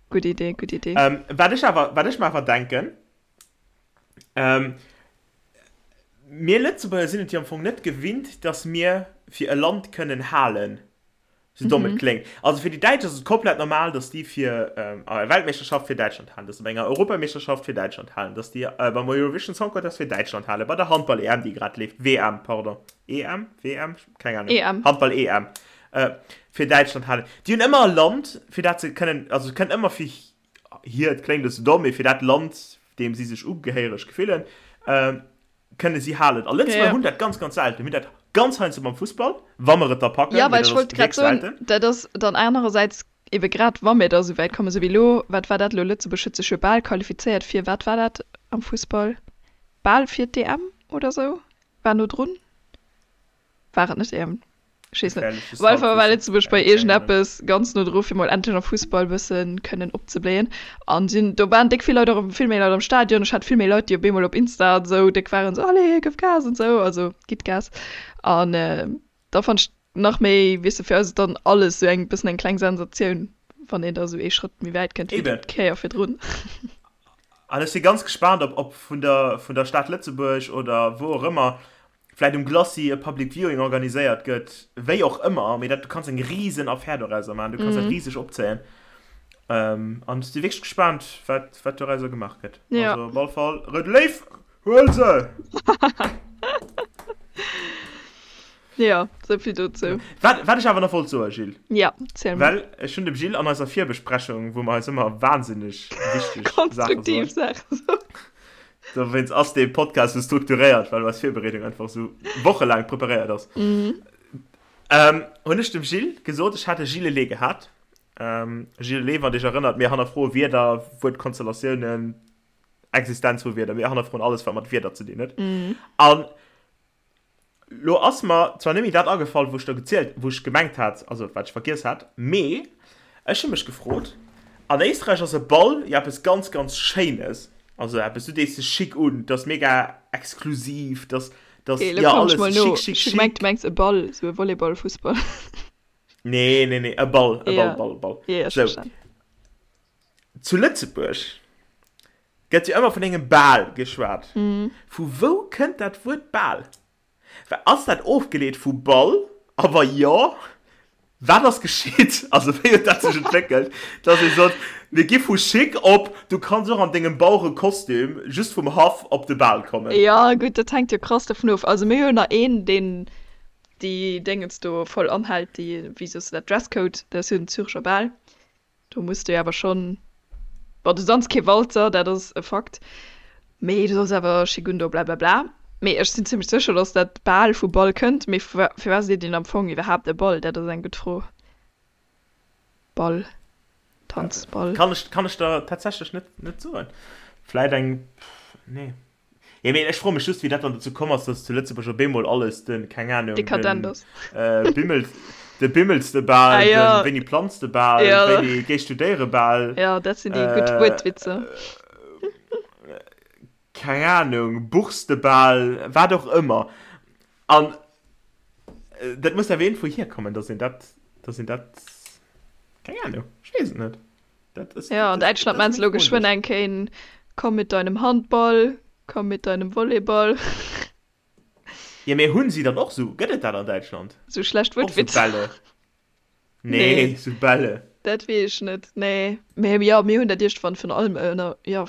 Gutt Idee, gutt Idee. Ähm, wat ech awer, wat ech mer awer denken, ähm, mir Lëtzebuerger sinn et jo am Fong net gewinnt, dass mir fir e Land kënnen halen, sou domm et kléngt. Also fir déi Däitsch ass et komplett normal, dass déi fir ähm, a Weltmeeschterschaft fir Däitschland halen, dass se bei enger Europameeschterschaft fir Däitschland halen, dass déi äh, beim Eurovision Song Contest fir Däitschland halen, bei der Handball-EM, déi grad leeft, WM, pardon, EM, WM, keng Ahnung, EM. Handball-EM, fir Däitschland halen. Déi hunn ëmmer e Land, fir dat se kënnen, also se kënnen ëmmer fir hiert, kléngt e bësse domm, mee fir dat Land, deem si sech ugehéiereg gefillen, kënne si halen. A Lëtzebuerger hunn dat ganz, ganz selten. Mir hunn dat ganz heiansdo beim Fussball, wa mer et da packen, Jo, mee well dat ech ass wollt grad wierklech soen, selten. dat ass dann anerersäits ebe grad, wa mir da esou wäit kommen, esou wéi elo, wat war dat elo, Lëtzebuerg huet sech jo bal qualifizéiert fir, wat war dat am Fussball, bal fir d'EM oder esou, war no drun, war et net EM? Ech weess net. Gefährleches Op alle Fall war Halbwissen. Lëtzebuerg bei Keng Ahnung. iergendeppes ganz no dru fir mol endlech am Fussball bëssen kënnen opzebléien. An sinn, do waren déck vill Leit och, vill méi Leit am Stadion. Ech hat vill méi Leit, déi op eemol op Insta an esou déck waren, esou allez, gëff Gas an esou, also gitt Gas. An da fannt ech nach méi, weess de, fir eis ass dann alles esou eng bëssen eng kleng Sensatioun, wann een da esou ee Schrëtt méi wäit kënnt wéi Eben. d'Kéier virdrun. An ech si ganz gespaant, ob, ob vun der, vun der Stad Lëtzebuerg oder wou och ëmmer vläit um Glacis e Public Viewing organiséiert gëtt, wéi och ëmmer, mee dat, du kanns eng risen Affär dorauser maachen, du kanns dat riseg opzéien. An ech si wierklech gespaant, wat, wat dorauser gemaach gëtt. Ja. Also op alle Fall, Rout Léiw, huel se! Ja, sou vill dozou. Wat, wat ech awer nach wollt soen, Gilles. Ja, ziel mol. Well ech hunn dem Gilles an eiser Virbesprechung, wou mer eis ëmmer wahnsinneg wichteg Saache soen. Konstruktiv Saache soen. Dowéinst ass dee Podcast sou strukturéiert, well eis Virbereedung einfach sou wochelaang preparéiert ass. Mhm. Ähm, hunn ech dem Gilles gesot, ech hat e Gilles-Lé gehat. Ähm, Gilles-Lé, wann Dir Iech erënnert, mir hannerfroe Wierder, Wuertkonstellatiounen, Existenz vu Wierder, mir hannerfroen alles, wat mat Wierder ze dinn huet. Mhm. An Lo ass mer zwar net méi dat agefall, wou ech do gezielt, wou ech gemengt hat, also wat ech vergiess hat, mee ech hu mech gefrot, an Éisträich ass e Ball jo eppes ganz, ganz Schéines, also eppes, du dees dech schick un, 't ass mega exklusiv, 't ass, 't ass, Okay, lo jo, kommen ech alles mol no. schick, schick, Ech hu gemengt, schick. du mengs e Ball, sou e Volleyball, Fussball. Nee, nee, nee, e Ball, e Ball, Ja, Ball, Ball. ja, ech Sou, verstan. zu Lëtzebuerg Gëtt jo ëmmer vun engem Bal geschwat. Vu wou kënnt dat Wuert Bal? Ass dat ofgeleet vu Ball? A wa jo, wat ass geschitt? Also wéi huet dat sech entwéckelt, dass ee sot, mir gi vu chic op du kanns och an dengem Bauerekostüm just vum Haff op de Bal kommen? Jo, gutt, dat hänkt jo krass dovun of. Also mir hunn jo nach een, deen déi Déngens do voll anhält, déi, wéi soss de dat, Dresscode, dat ass jo den Zürecher Bal. Do muss de awer schonn, bon du danz kee Walzer, dat ass e Fakt, mee du solls awer chic un do blablabla. Mee ech sinn zimmlech sécher, dass dat bal vu Ball kënnt. Mee firwat seet een am Fong iwwerhaapt e Ball? Dat ass eng gutt Fro. Ball, Tanzball. Kann ech, kann ech der tatsächlech net, net soen. Vläit eng, nee. Jo, mee ech froe mech just, wéi dat dann dozou komm ass, dass zu Lëtzebuerg op eemol alles den, keng Ahnung, den Dekadent ass. Bimmel, de Bimmelstebal, Ah, jo. den Wéini planz de Bal, Jo. Wéini géi studéiere Bal, Jo, dat sinn déi gutt Wuertwitzer. keng Ahnung, Buchstebal, wat och ëmmer. An dat muss awer iergendwou hierkommen, dass een dat, dass een dat, keng Ahnung, ech weess et net. Dat ist, ja, an Däitschland meinst du geschwënn eng Kéin, komm mit deinem Handball, komm mit deinem Volleyball. Ja, mee hunn si dann och sou, gëtt et dat an Däitschland? Sou schlecht Wuertwitzer? Och sou Bälle? Nee, nee, sou Bälle. Dat weess ech net, nee. Mee jo, mir hunn dat iergendwann vun allem ënner, jo,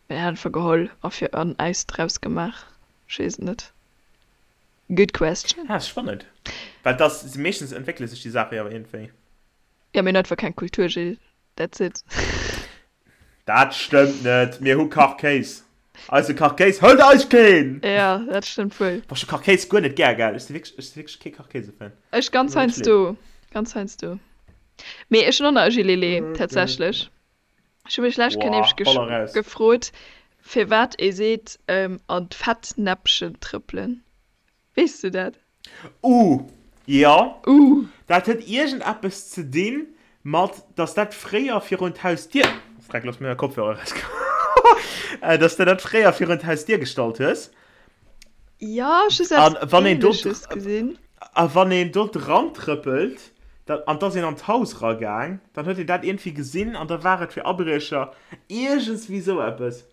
mir hunn einfach geholl a fir an äis draus gemaach. Ech weess et net. Good question. Ah, spannend. Well dass, meeschtens entwéckele sech déi Saache jo awer iergendwéi. Jo, mir hunn einfach keng Kultur, Gilles. That's it. Dat stëmmt net. Mir hu Kachkéis. Eise Kachkéis hëlt eis keen! Jo, dat stëmmt wuel. Boah, ech hu Kachkéis guer net gär, gell. Ech si wierklech, ech si wierklech kee Kachkéise-Fan. Ech ganz heiansdo. Ganz heiansdo. Mee ech hunn och nach e Gilets, tatsächlech. Ech hu mech lech Kéier nämlech gefrot, firwat ee seet an d'Fettnäppchen trëppelen. Weess du dat? Uh, jo. Uh. Dat huet iergendeppes ze dinn mat, dass dat fréier virun d'Hausdier, Freck, looss mir mäi Kopfhörer erauskommen, dass de dat fréier virun d'Hausdier gestallt hues. Jo, ech hu eppes Ähnleches gesinn. A wann een do dran trëppelt, da, an 't ass een an d'Haus eragaang, dann huet een dat iergendwéi gesinn an da war et fir Abriecher, iergendswéi sou eppes.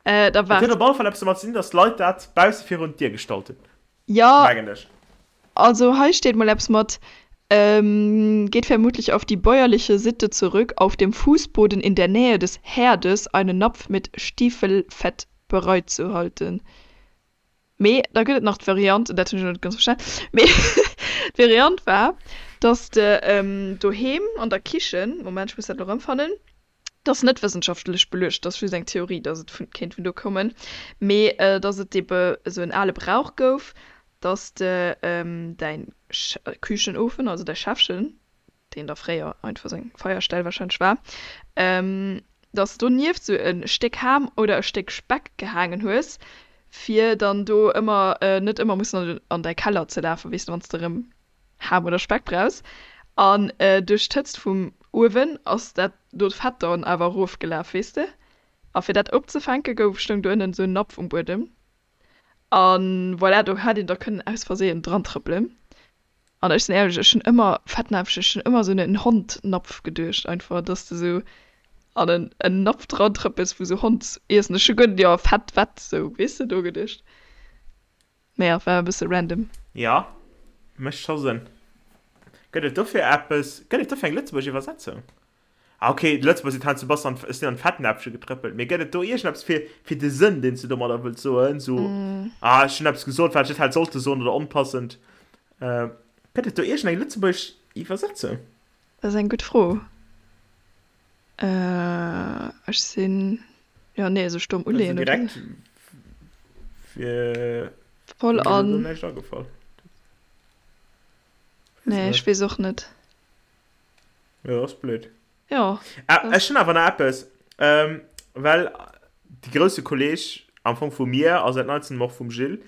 Äh, da Et huet waart. op alle Fall eppes domat ze dinn, dass d'Leit dat bausse virun d'Dier gestallt hunn, Jo, mengen ech. also hei steet mol eppes mat, ähm, geht vermutlich auf die bäuerliche Sitte zurück, auf dem Fußboden in der Nähe des Herdes einen Napf mit Stiefelfett bereitzuhalten. Mee da gëtt et nach d'Variant, dat hunn ech elo net ganz verstan, mee d'Variant war, dass de doheem an der Kichen, Moment, ech muss dat elo erëmfannen, dat ass net wëssenschaftlech beluecht, dat ass just eng Theorie, dass et vun, kéint vun do kommen, mee dass et ebe esou en ale Brauch gouf, dass de däin Küchenofen, also däi Schäffchen, deen da fréier einfach seng Feierstell wahrscheinlech war, dass de donieft sou e Stéck Ham oder e Stéck Speck gehaangen hues, fir dann do ëmmer net ëmmer mussen an däi Keller ze lafen, weess de, wann s de erëm Ham oder Speck brauchs. An duerch d'Hëtzt vum Uewen ass dat do d'Fett dann awer erofgelaf, weess de. A fir dat opzefänke gouf, stoung do ënnen sou en Napf um Buedem. A voilà, do hätt een da kënnen aus Versehen dran trëppelen. An ech sinn éierlech, ech hunn ëmmer Fettnäpfchen, ech hunn ëmmer esou un en Hondnapf geduecht einfach, dass de sou an en en Napf dran trëppels wou sou Hondsiessen, ech hu guer net, jo Fett, Wett, sou weess de do geduecht. Mee jo, war e bësse random. Jo, mécht scho Sënn. Gëtt et dofir eppes, gëtt et dofir eng lëtzebuergesch Iwwersetzung? Ah ok, d'Lëtzebuerger sinn heiansdo bass an, ech sinn an d'Fettnäpfche getrëppelt. Mee gëtt et do iergendeppes fir, fir de Sënn, deen s du domadder wëlls soen? Sou, ah, ech hunn eppes gesot, wat ech net hätt sollte soen oder onpassend. Gëtt et do iergendeng lëtzebuergesch Iwwersetzung? Dat ass eng gutt Fro. Ech sinn, jo, nee, esou stomm uleeën, oder? Direkt wier Voll mir elo an. do näischt agefall. Nee, ech weess och net. Jo, ass blöd. Jo. Ah, ech hunn awer nach eppes. Ähm, well de grousse Kolleg am Fong vu mir a säit neizem och vum Gilles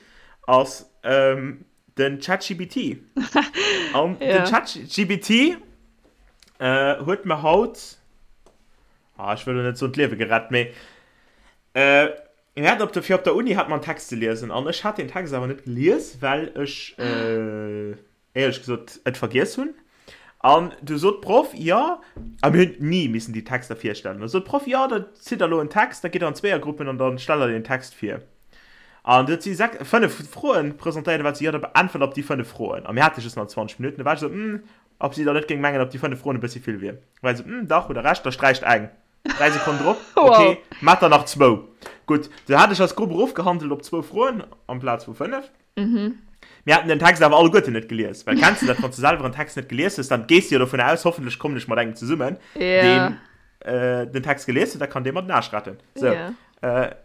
ass ähm, den ChatGPT. An Ja. den ChatGPT äh, huet mir haut, ah, ech wëll lo net soen d'Liewe gerett, mee äh, mir haten op der, fir op der Uni hat mer en Text ze liesen an ech hat den Text awer net gelies, well ech äh, éierlech gesot et vergiess hunn. An du sot d'Proff, jo, a mir hunn ni missen déi Texter virstellen, da sot d'Proff, jo, da zitt der elo en Text, da gitt der an Zweeërgruppen an da stellt der deen Text vir. An du huet si sech, fënnef Froen presentéiert, da war et sou, jo, da beäntwert op déi fënnef Froen. A mir hate just nach 20 Minutten, da war ech esou, hm, ob si da net géing mengen, ob déi fënnef Froen e bëssi vill wier. Da war si esou, hm, dach, hutt der Recht, da sträicht eng. Dräi Sekonnen drop, ok, mat der nach zwou. Gutt, du hat ech als Grupp erofgehandelt op zwou Froen amplaz vu fënnef. Mir haten den Text awer alleguerten net gelies, well kenns de dat, wann s du selwer en Text net gelies hues, dann gees du jo dovun aus, hoffentlech kommen ech mat engem zesummen, deen den Text gelies huet, da kann dee mer den Aarsch retten. Sou,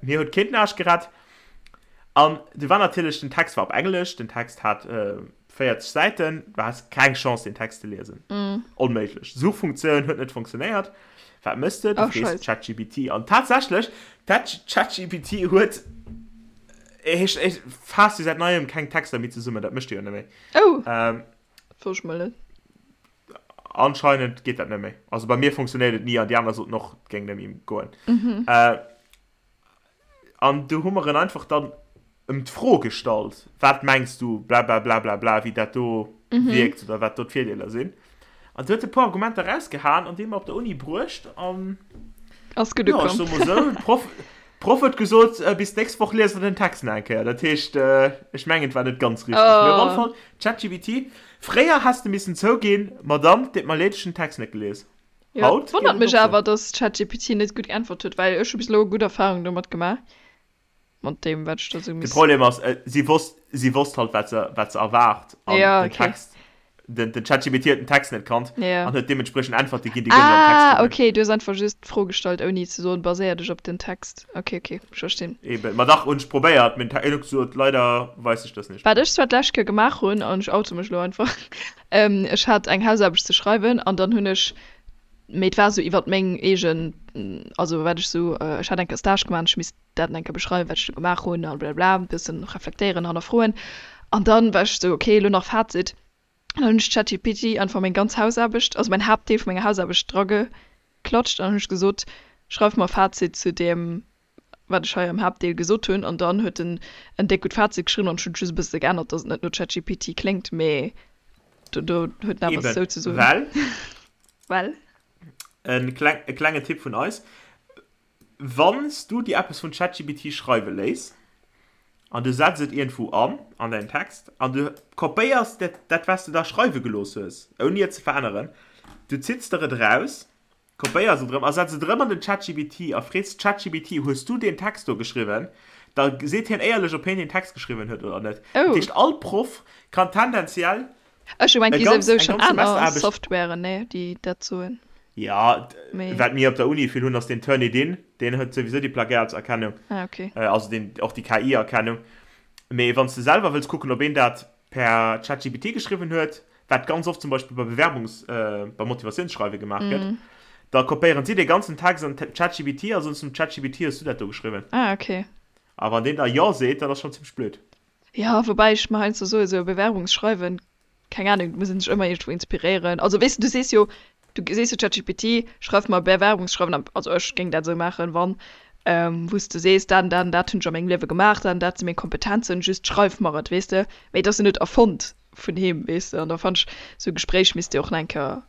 mir huet keen den Aarsch gerett. An du war natierlech, den Text war op Englesch, den Text hat 40 Säiten, du has keng Chance den Text ze liesen. Onméiglech. Suchfunktioun huet net funktionéiert. Wat mëss de? Du frees ChatGPT. An tatsächlech, ChatGPT huet, ech, ech faasst jo säit neiem keng Texter méi zesummen, dat mécht e jo net méi. Oh! Dat wosst ech mol net. Anscheinend geet dat net méi. Also bei mir funktionéiert et ni an déi aner soten och, et géing net méi goen. An du hu mer en einfach dann ëm d'Fro gestallt, wat mengs du, blablablablabla, wéi dat do wierkt oder wat do d'Virdeeler sinn. An du huet e puer Argumenter rausgehaen an déi mer op der Uni bruecht an Ass gutt jo, ech ukomm. soe mol esou, d'Proff, d'Proff huet gesot, bis d'nächst Woch liest der den Text nach eng Kéier. Dat heescht, ech mengen, et war net ganz richteg. Mee op alle Oh. Fall, ChatGPT, fréier häss de missen zouginn, Madame, deet mer leed, ech hunn den Text net gelies. Jo, Haut geet wonnert et mech och sou. awer, dass ChatGPT net gutt geäntwert huet, well ech hu bis elo gutt Erfahrungen domat gemaach, mat deem wat ech da sou De miss. Problem ass, si wosst, si wosst halt, wat se, wat se erwaart an Ja, den okay. Text, den, den ChatGPT huet den Text net kannt Ja. an huet deementspriechend Äntwerte ginn, déi guer net am Text Ah, stoungen. okay, du hues einfach just d'Fro gestallt, ouni ze soen, baséier dech op den Text. Okay, okay, ech verstinn. Eben, ma dach hunn ech probéiert, mee den Te-, en huet gesot, leider weiß ich das nicht. Wat ech zwar d'lescht Kéier gemaach hunn, an ech oute mech elo einfach, Ech hat eng Hausaarbecht ze schreiwen an dann hunn ech. Mee et war esou iwwert meng eegen, also wat ech esou, ech hat eng Kéier Stage gemaach an ech misst dat eng Kéier beschreiwen, wat ech do gemaach hunn a blablabla, e bëssen reflektéieren, hannerfroen. An dann war ech esou, okay, elo nach Fazit. An dann hunn ech ChatGPT einfach meng ganz Hausaarbecht, also mäin Haaptdeel vu menger Hausaarbecht draggeklatscht an dann hunn ech gesot, schreif mer e Fazit zu deem, wat ech hei am Haaptdeel gesot hunn. An dann huet en en déck gutt Fazit geschriwwen an ech hunn et just e bësse geännert, dass et net no ChatGPT kléngt, mee do do huet en awer Eben, souzesoen. well. Well. E kleng, e klengen Tipp vun eis, Wann s du dir eppes vun ChatGPT schreiwe léiss an du setz et iergendwou an, an däin Text, an du kopéiers dat, dat wat s de da schreiwe gelooss hues, ouni et ze veränneren, du zitts der et eraus, kopéiers et erëm a setz et erëm an den ChatGPT a frees ChatGPT, Hues du deen Text do geschriwwen? Da seet hien éierlech, ob hien deen Text geschriwwen huet oder net. Dat Oh. heescht, all Proff kann tendenziell Ech hu gemengt, e gi ganz, souwisou eng schonn ganz aner Semesteraarbecht. Softwaren, nee, déi dat soen. Ja, Mee. wat mir op der Uni vill hunn, ass den Turnitin. Deen huet souwisou déi Plagiatserkennung, Ah, okay. also deen, och déi KI-Erkennung. Mee wann s de selwer wëlls kucken, ob een dat per ChatGPT geschriwwen huet, wat ganz oft zum Beispill bei Bewerbungs-, bei Motivatiounsschreiwe gemaach gëtt, da kopéieren si dee ganzen Text an ChatGPT a soen zum ChatGPT, Hues du dat do geschriwwen? Ah, okay. A wann deen da Jo seet, dann ass schonn zimmlech blöd. Jo, woubäi ech mer heiansdo soen, esou e Bewerbungsschreiwen, keng Ahnung, et muss een sech ëmmer iergendwou inspiréieren. Also weess de, du sees jo, du sees jo ChatGPT, schreif mer e Bewerbungsschreiwen, an also ech géing dat esou maachen, wann, wou s de sees, dat an dat an dat hunn ech a mengem Liewe gemaach, dat an dat si meng Kompetenzen, just schreif mer et, weess de. Mee et ass jo net erfonnt vun him, weess de. An da fannen ech, esou e Gespréich misst jo och nach eng Kéier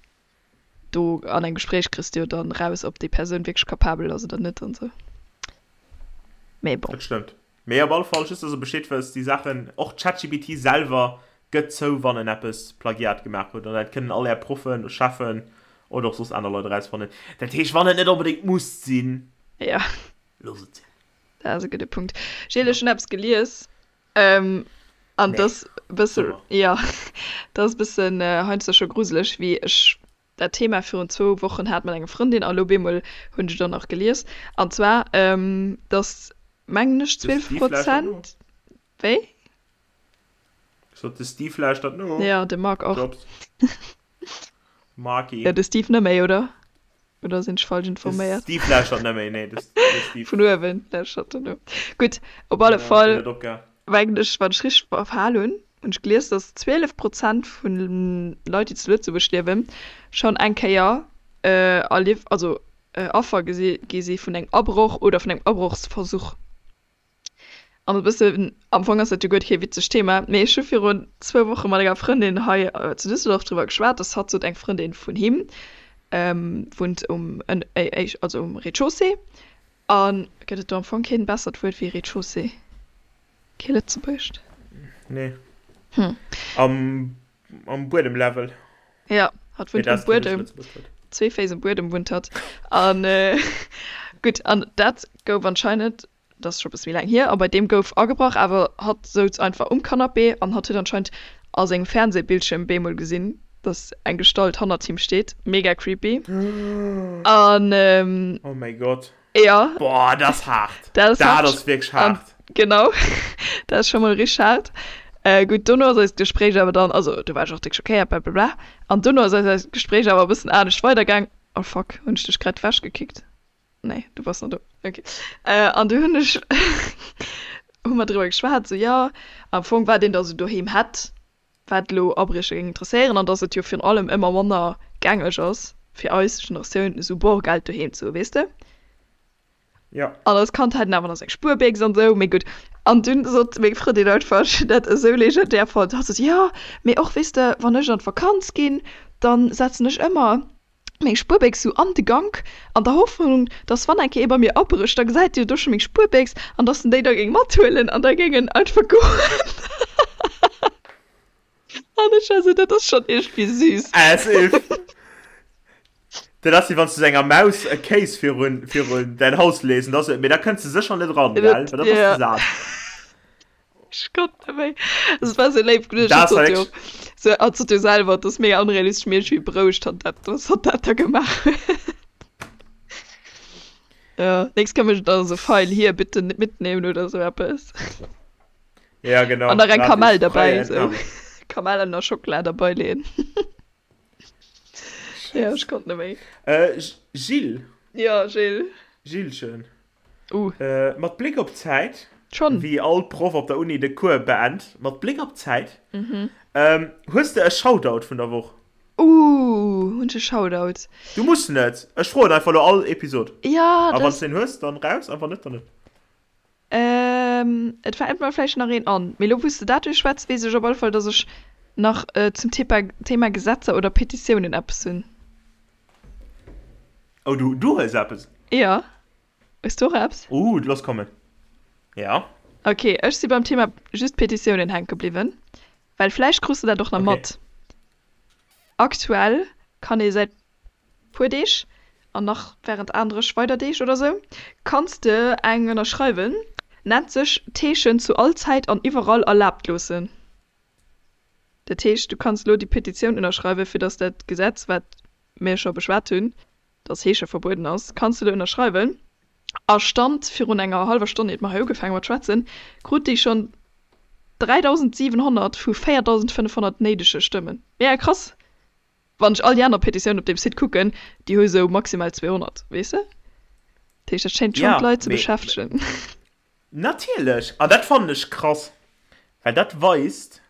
do an engem Gespréich kriss de jo dann raus, ob déi Persoun wierklech capabel ass oder net an esou. Mee bon. Dat stëmmt. Mee op alle Fall, just dass der Bescheed wësst, déi Saachen, och ChatGPT selwer gëtt zou, wann en eppes Plagiat gemaach huet. An dat kënnen all är Proffen, Cheffen oder och soss aner Leit erausfannen. Dat heescht, wann et net onbedéngt muss sinn, Ja. loosst et sinn. Dat ass e gudde Punkt. Gilles, ech hunn eppes gelies. Ähm, an Nee. das bësse, Super. ja, dat ass bëssen äh, heiansdo scho gruseleg, wéi ech dat Thema virun zwou Wochen hat mat enger Frëndin a lo bemol hunn ech et och nach gelies. An zwar, ähm, dass, mengen ech, De 12 Steve lauschtert no. Prozent, wéi? Ech sot, de Steve lauschtert no. Ja, de Marc och. Jobs. Marky. Ja, de Steve net méi, oder? Oder sinn ech falsch De informéiert? Steve lauschtert net méi, nee, de Steve. Vun uewen lauschtert en no. Gutt, op alle Ja, deen Fall, huet opgehal. mengen ech, wann ech richteg verhal hunn, hunn ech gelies, dass 12 Prozent vun Leit, déi zu Lëtzebuerg liewen, schonn eng Kéier erlief, also Affer gesi gi si vun engem Abroch oder vun engem Abrochsversuch. An e bëssen, am Fong ass dat jo guer kee witzegt Thema, mee ech hu virun zwou Woche mat enger Frëndin hei zu Düsseldorf driwwer geschwat, dass hatt sot, eng Frëndin vun him wunnt um, also um Rez-de-chaussée. A gëtt et do am Fong keen bessert Wuert wéi Rez-de-chaussée? Kee lëtzebuergescht? Nee. Hm. Am, am Buedemlevel. Ja, hatt wunnt um Buedem. Zwee Féiss um Buedem wunnt hatt. An gutt, an dat gouf anscheinend dat ass scho bësse méi laang hier, a bei deem gouf agebrach, awer hatt souz einfach um Canapé an hatt huet anscheinend a sengem Fernsehbildschierm bemol gesinn, dass eng Gestalt hannert him steet. Mega creepy. An Oh mäi Gott. Jo. Boah, dat ass haart. Dat ass Dat haart. ass wierklech An haart. genau, dat ass scho mol richteg haart. Gutt, dono ass eist Gespréich awer dann, also do war ech och déck schockéiert, blablabla, an dono ass eist Gespréich awer e bëssen anescht weidergaang. Oh fuck, hunn ech dech grad ewechgekickt? Nee, du bass nach do. Okay. Äh, an du hunn ech hu mer driwwer geschwat, sou jo, am Fong wat een da sou doheem hätt, wat elo Abriecher géing interesséieren an dass et jo virun allem ëmmer manner gängeg ass fir eis Generatioun esou Borgeld doheem ze hu, weess de? Jo. An als Kand hat een awer nach seng Spuerbécks an esou, mee gutt. An dunn sot meng Frëndin einfach, ech hunn dat esou legendär fonnt, hatt sot, jo, mee och, weess de, wann ech an d'Vakanz ginn, dann setzen ech ëmmer meng Spuerbéchs sou an de Gank, an der Hoffnung, dass wann eng Kéier ee bei mir abrécht, da gesäit en jo do scho meng Spuerbéchs an dass en déi da géing mathuelen an da géing en einfach goen. An ech war sou, dat ass schonn iergendwéi süß. As if. Dat ass wéi wann s du sou enger Maus e Kéis virun, virun däin Haus lees an da sou, mee da kënns de sécher net eran, gell, well da bass de sat. Ech konnt net méi. Es war sou léif geduecht. Dat Hatt war sot jo, wierklech. sou, hatt sot jo selwer, et ass mega onrealistesch, mee iergendwéi berouegt hatt dat, dass hatt dat da gemaach huet. Ja, nächst Kéier mécht en dann esou Feil, hier, bitte mitnehmen oder sou eppes. Ja, genau. An nach eng Gratis. Kamell derbäi, Freie sou. Entnahme. Kamellen a Schockela derbäi leeën. Ja, ech konnt net méi. Äh, Gilles. Ja, Gilles. Gillchen. Uh. Äh, mat Bléck op d'Zäit. Schonn. Wéi all Proff op der Uni de Cours beend, mat Bléck op d'Zäit. Mhm. Ähm, hues de e Shoutout vun der Woch? Uh, hunn ech e Shoutout? Du muss net. Ech froen einfach elo all Episod. Ja, das. A wann s de een hues, dann raus, a wann net, dann net. Ähm, et fält mer vläicht nach een an. Mee elo wou s de dat duerchschwätz, weess ech op alle Fall, dass ech nach zum Thema Gesetzer oder Petitiounen eppes hunn. Oh, du, du hues eppes? Jo. Hues du och eppes? Uh, looss kommen. Ja. Ok, ech si beim Thema just Petitiounen hänke bliwwen, well vläicht krus de dat och nach mat. Aktuell kann ee säit puer Deeg, an nach während anerech weider Deeg oder sou, kanns de eng ënnerschreiwen, nennt sech D'Heeschen zu all Zäit an iwwerall erlaabt loossen. Dat heescht, du kanns elo déi Petitioun ënnerschreiwen, fir datt dat Gesetz, wat mir scho beschwat hunn, datt Heesche verbueden ass, kanns de elo ënnerschreiwen. A Stand virun enger hallwer Stonn, iert mer hei ugefaange mat schwätzen, krut déi schonn 3.700 vu 4.500 néidege Stëmmen. Mega krass! Wann ech all déi aner Petitiounen op deem Site kucken, déi hu sou maximal 200, weess de? Dat heescht, dat schéint schonn d'Leit ze beschäftegen. Natierlech! An dat fannen ech krass, well dat weist,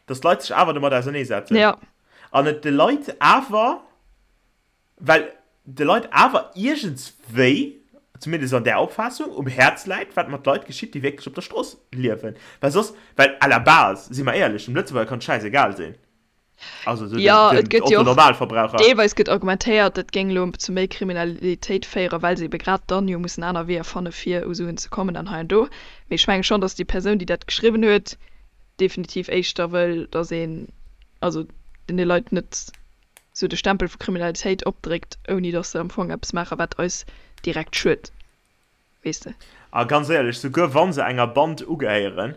dass d'Leit sech awer domat auserneesetzen. Ja. An et de Leit awer, well de Leit awer iergendswéi, zumindest an där Opfaassung, um Häerz läit, wat mat Leit geschitt, déi wierklech op der Strooss liewen. Well soss, well à la base, si mer éierlech, dem Lëtzebuerger kann et schäisegal sinn. Also so ja, den, den Otto Normalverbraucher. Deelweis gëtt argumentéiert, dat géing elo zu méi Kriminalitéit féieren, well se ebe grad dann jo mussen aner Weeër fanne fir u Suen ze kommen an hei an do. Mee ech menge schonn, datt déi Persoun, déi dat geschriwwen huet, definitiv éischter wëll, datt een also deene Leit net sou de Stempel vu Kriminalitéit opdréckt, ouni datt se am Fong eppes maachen, wat eis direkt schued. Weess de. A ganz éierlech, souguer wa se enger Band ugehéieren,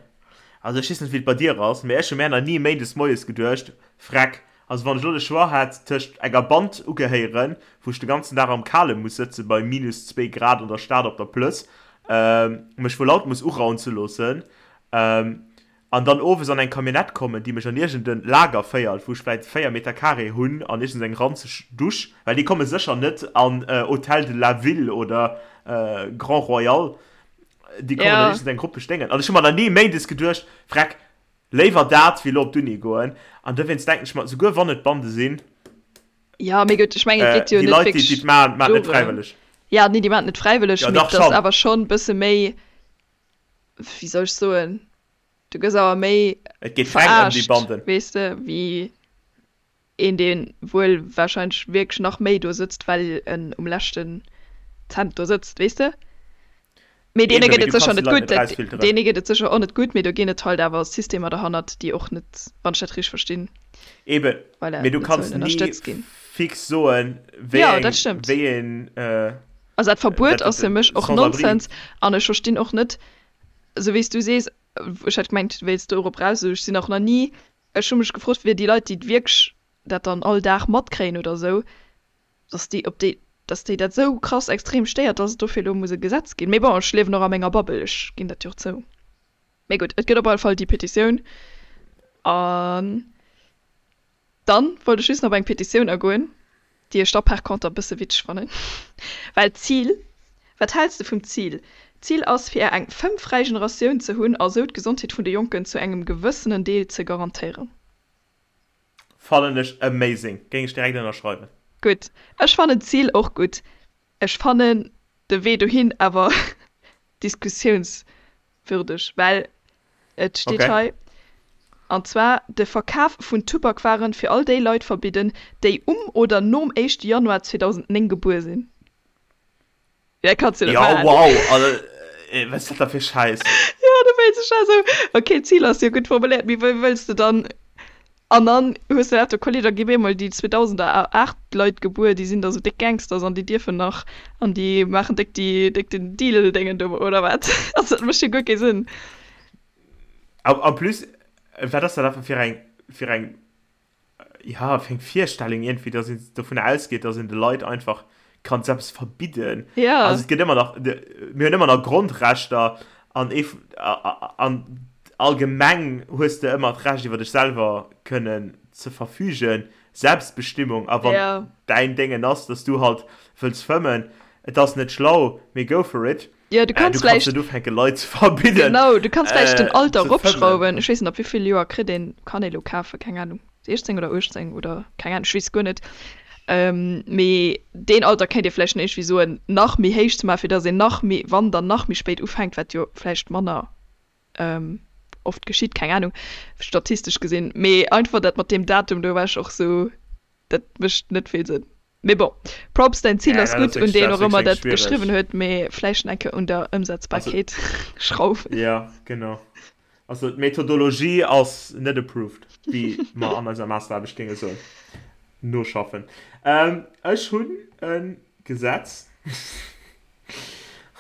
also ech weess net wéi et bei dir ass, mee ech hu mär nach ni méindes moies geduecht, Freck, also wann ech elo de Choix hätt tëscht enger Band ugehéieren, wou ech de ganzen Dag am Kale muss sëtze bei minus zwee Grad an der Stad op der Plëss, mech vu Laut muss uraunze loossen, An dann owes an eng Camionnette kommen, déi mech an iergend en Lager féiert, wou ech vläit 4 Meter carré hunn an iergends eng ranzeg Dusch, well déi komme sécher net an Hôtel de la Ville oder Grand Royal, déi kommen an iergend eng ruppeg Déngen. An ech hu mer nach ni méindes geduecht, Vreck, léiwer dat, wéi elo op d'Uni goen. An dowéinst denken ech mer, souguer wann et Bande sinn, Jo, mee gutt, ech mengen, et geet jo déi net Leit, déi wierklech et maachen, maachen et net dorëm. fräiwëlleg. Jo, nee, déi maachen et net fräiwëlleg, Jo, mee dach et ass schonn. awer schonn e bësse méi, wéi soll ech soen, du gëss awer méi Et geet reng ëm déi verarscht, Banden. weess de, wéi een, dee wuel warscheinlech wierklech nach méi do sëtzt, well en um leschten Cent do sëtzt, weess de. Mee deene Eben, gëtt mee et du sécher kanns déi net Leit gutt, net dat, erausfilteren. deene gëtt et sécher och net gutt, mee do ginn et halt awer Systemer derhannert, déi och net, wann ech dat richteg verstinn, Eben, voilà, mee du net kanns sollen ni ënnerstëtzt ginn. fix soen, wéi Jo, eng, dat stëmmt. wéi een, Also dat Verbuet dat, ass fir mech och sans abri. Nonsens an ech verstinn och net, esou wéi s du sees, ech hat gemengt du wéilts dorop raus, ech sinn och nach ni, ech hu mech gefrot fir déi Leit déi wierklech dat dann all Dag matkréien oder esou, dass déi, ob déi, dass déi dat esou krass extrem stéiert, dass et dofir elo muss e Gesetz ginn. Mee bon, ech liewen och a menger Bubble, ech ginn dat jo och zou. Mee gutt, et gëtt op alle Fall déi Petitioun an Dann wollt ech just nach op eng Petitioun agoen, déi ech da par conter e bësse witzeg fannen, well d'Zil, wat häls de vum Zil? D'Zil ass fir eng fëmmfräi Generatioun ze hunn a sou d'Gesondheet vun de Jonken zu engem gewëssenen Deel ze garantéieren. Fannen ech amazing, géing ech direkt ënnerschreiwen. Gutt, ech fannen d'Zil och gutt, ech fannen de Wee dohin awer diskussiouns Würdeg, well et steet Okay. hei, an zwar de Verkaf vun Tubakwaren fir all déi Leit verbidden, déi um oder nom éischte Januar 2009 gebuer sinn. Dat kanns du net Ja, maachen. wow, also, wat ass dat da fir Schäiss? Jo, da wéilt ech esou, okay, d'Zil ass jo gutt formuléiert, mee wéi wëlls de dann An dann hues de dat do Kolleg, da gi bemol déi 2008 Leit gebuer, déi sinn da sou déck Gangsters an déi dierfen nach an déi maachen déck déi déck den Deal-Déngen do oder wat. Also dat mécht jo guer kee Sënn. En plus, wat ass dat einfach fir eng fir eng ja fir eng Virstellung iergendwéi, datt een dovun ausgeet, datt een de Leit einfach kann eppes verbidden. Ja. Also et gëtt ëmmer nach, mir hunn ëmmer nach Grondrechter an ee an allgemeng hues de ëmmer d'Recht iwwer dech selwer kënnen ze verfügen. Selbstbestimmung a wann Ja. däin Déngen ass, dass du halt wëlls fëmmen, et ass net schlau, mee go for it. Ja, du Äh, kanns du kanns vläicht, net ufänke Leit ze verbidden genau, du kanns vläicht den äh, Alter ze fëmmen. eropschrauwen. Ech weess net, ab wéi vill Joer kritt een, kann ee lo kafen, keng Ahnung, 16 oder 18 oder keng Ahnung, ech weess guer net. Ähm, mee deen Alter kéint ee vläicht nach iergendwéi soen, nach méi héich ze maachen, fir dass een nach méi, wann dann nach méi spéit ufänkt, wat jo vläicht manner oft geschitt, keng Ahnung, statistesch gesinn, mee einfach dat mat deem Datum do war ech och sou, dat mécht net vill Sënn. Mee bon, Props, däin Zil Ja, ass dat ass gutt, un wierklech, deen dat ass och ëmmer wierklech dat schwiereg. geschriwwen huet, mee vläicht eng Kéier un der Also, Ëmsetzbarkeet schrauwen. ja, genau. Also d'Methodologie ass net approved, wéi mer an eiser Masteraarbecht géinge soen. Noschaffen. Ech hunn e Gesetz.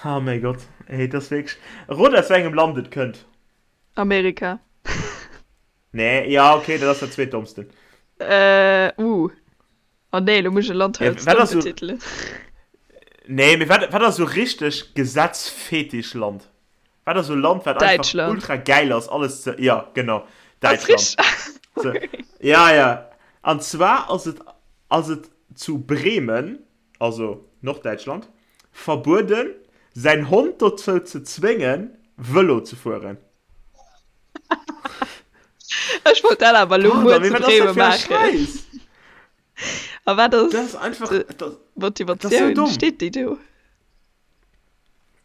Oh mäi Gott, ey, et ass wierklech. Rot aus wéi engem Land et kënnt. Amerika. Nee, ja, okay, dat ass dat zweetdommsten. Äh, uh. Oh nee, lo muss ech e Land hei Ja, als wat domm ass sou. betitelen. Nee, mee wat, wat ass sou richteg Gesetzfetisch-Land? Wat ass sou Land, wat einfach Däitschland. ultra gäil ass, alles ze. Ja, genau, Ass Däitschland. richteg? So, ja, ja. An zwar ass et, ass et zu Bremen. also Norddäitschland, verbueden, säin Hond dozou ze zwéngen, Vëlo ze fueren. Ech wollt dat awer elo muer Pardon, mee zu wat ass dat Bremen fir e maachen. Schäiss? A wat Dat ass ass einfach, dat, dat ass esou d'Motivatioun? domm. Steet déi do?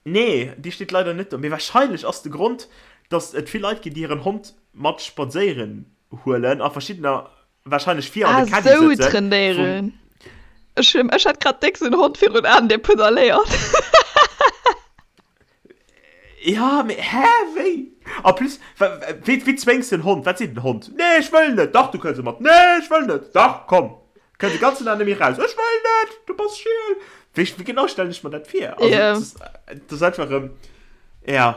Nee, déi steet leider net do. Mee wahrscheinlech ass de Grond, datt et vill Leit ginn, déi hiren Hond mat spadséieren huelen a verschiddener Wahrscheinlech vir an Ah, de Caddy sou sëtzen vum. trainéieren. Ech hun, ech hat grad déck sou en Hond virun Aen, dee pedaléiert. Ja, mee hä, wéi? En plus, wéi, wéi zwéngs de en Hond? Wat seet den Hond? Nee, ech wëll net! Dach, du kënns mat! Nee, ech wëll net! Dach, komm! Kënns de ganzen Dag net méi raus! Ech wëll net! Du bass schiel! Wéi, wéi genau stellen ech mer dat vir? Also, Ja. dat ass einfach erëm, ja.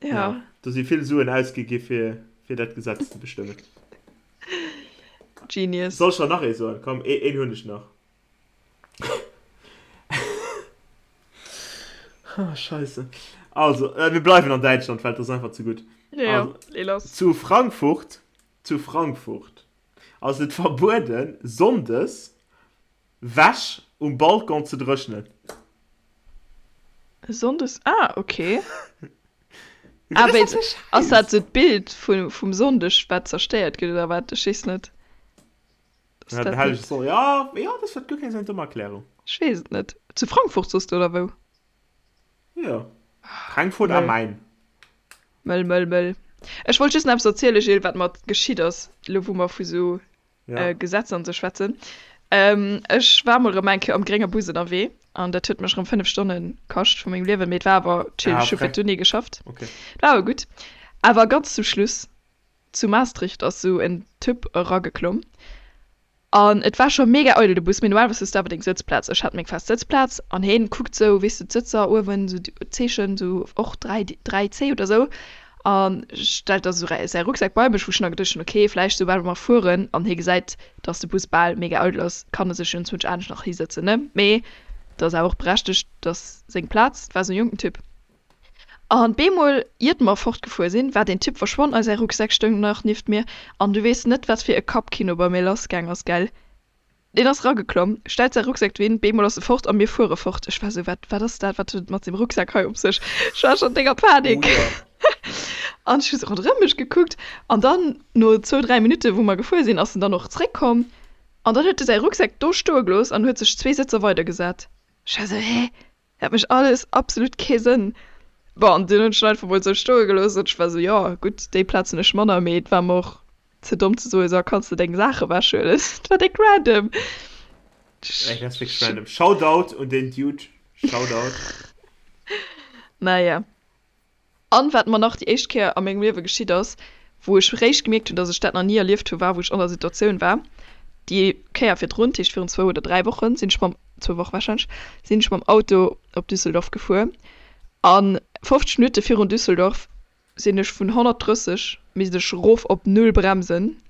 Ja. Ja, do si vill Suen ausgi gi fir, fir dat Gesetz ze bestëmmen. Genius. Soll ech der nach ee soen? Komm, ee, een hunn ech nach. Ah, Scheisse. Also, äh, mir bleiwen an Däitschland, well dat ass einfach ze gutt. Ja, Also, lee lass. zu Frankfurt, zu Frankfurt ass et verbueden, sonndes Wäsch um Balcon ze dréchnen. Sonndes, ah ok. Wat Ah ass wéi dat fir ass dat Schäiss? sou d'Bild vu vum Sonndeg wat zerstéiert gëtt oder wat? Ech weess net. Ass Ja, den dat hellege net? Sonn, ja, ja, dat ass guer keng sou eng domm Erklärung. Ech weess et net. Zu Frankfurt soss de oder wou? Jo, Frankfurt am Mëll. Main. Mëll, mëll, mëll. Ech wollt just nach eppes erziele Gilles, wat mer geschitt ass, elo wou mer vu sou Ja. Gesetzer an sou schwätzen. Ech war mol rëm eng Kéier am grénge Bus ënnerwee an dat huet mech rëm 5 Stonne kascht vu mengem Liewen, mee et war awer chill, Ah, ech hu fir frech. d'Uni geschafft. Okay. Et war awer gutt. Awer ganz zum Schluss, zu Maastricht ass sou en Typ erageklomm an et war scho mega eidel de Bus, mee normalerweis hues de awer deng Sëtzplaz, ech hat meng fest Sëtzplaz an heen kuckt sou, weess de, d'Sëtzer uewen, sou d'Zeechen, sou och 3, 3C oder sou A stellt da sou säi Rucksak bei mech, wou ech nach geduecht hunn, ok, vläicht soubal mer fueren an hie gesäit, dass de Bus bal mega eidel ass, kann e sech jo enzwousch anescht nach hisëtzen, ne? Mee dat ass awer och berechtegt, dass seng Plaz, et war sou e jonken Typ. An bemol, iert mer fortgefuer sinn, war deen Typ verschwonn a säi Rucksak stoung nach nieft mir. An du weess net, wat fir e Kappkino bei mir lassgaang ass, gell? Deen ass rageklomm, stellt säi Rucksak dohin, beemol ass e fort a mir fuere fort. Ech war sou, Wat, wat ass dat? Wat huet et mat sengem Rucksak hei op sech? Ech war schonn déck a Panik. Oh jo. An ech hu sou ronderëm mech gekuckt an dann, no zwou, dräi Minutte wou mer gefuer sinn, ass en dann och zréckkomm an dann huet e säi Rucksak do stoe gelooss an huet sech zwee Sëtzer weidergesat. Ech war sou, Hä? Dat mécht alles absolut kee Sënn. Bon, an dunn hunn ech en einfach mol sou stoe gelooss an ech war sou, jo gutt, déi Plaz hunn ech manner, mee et war mer och ze domm ze soen, so kanns de deng Saach ewechhuelen. Et war déck random. Ey, dat ass wierklech random. Shoutout un deen Dude. Shoutout. Naja. An wat mer nach déi éischt Kéier a mengem Liewe geschitt ass, wou ech réischt gemierkt hunn, dass ech dat nach ni erlieft hu war, wou ech an der Situatioun war, déi Kéier virdrun, dat heescht virun zwou oder 3 Wochen, sinn ech mam, zwou Woche warscheinlech, sinn ech mam Auto op Düsseldorf gefuer an 50 Minutte virun Düsseldorf sinn ech vun 130 misst ech rof op null bremsen,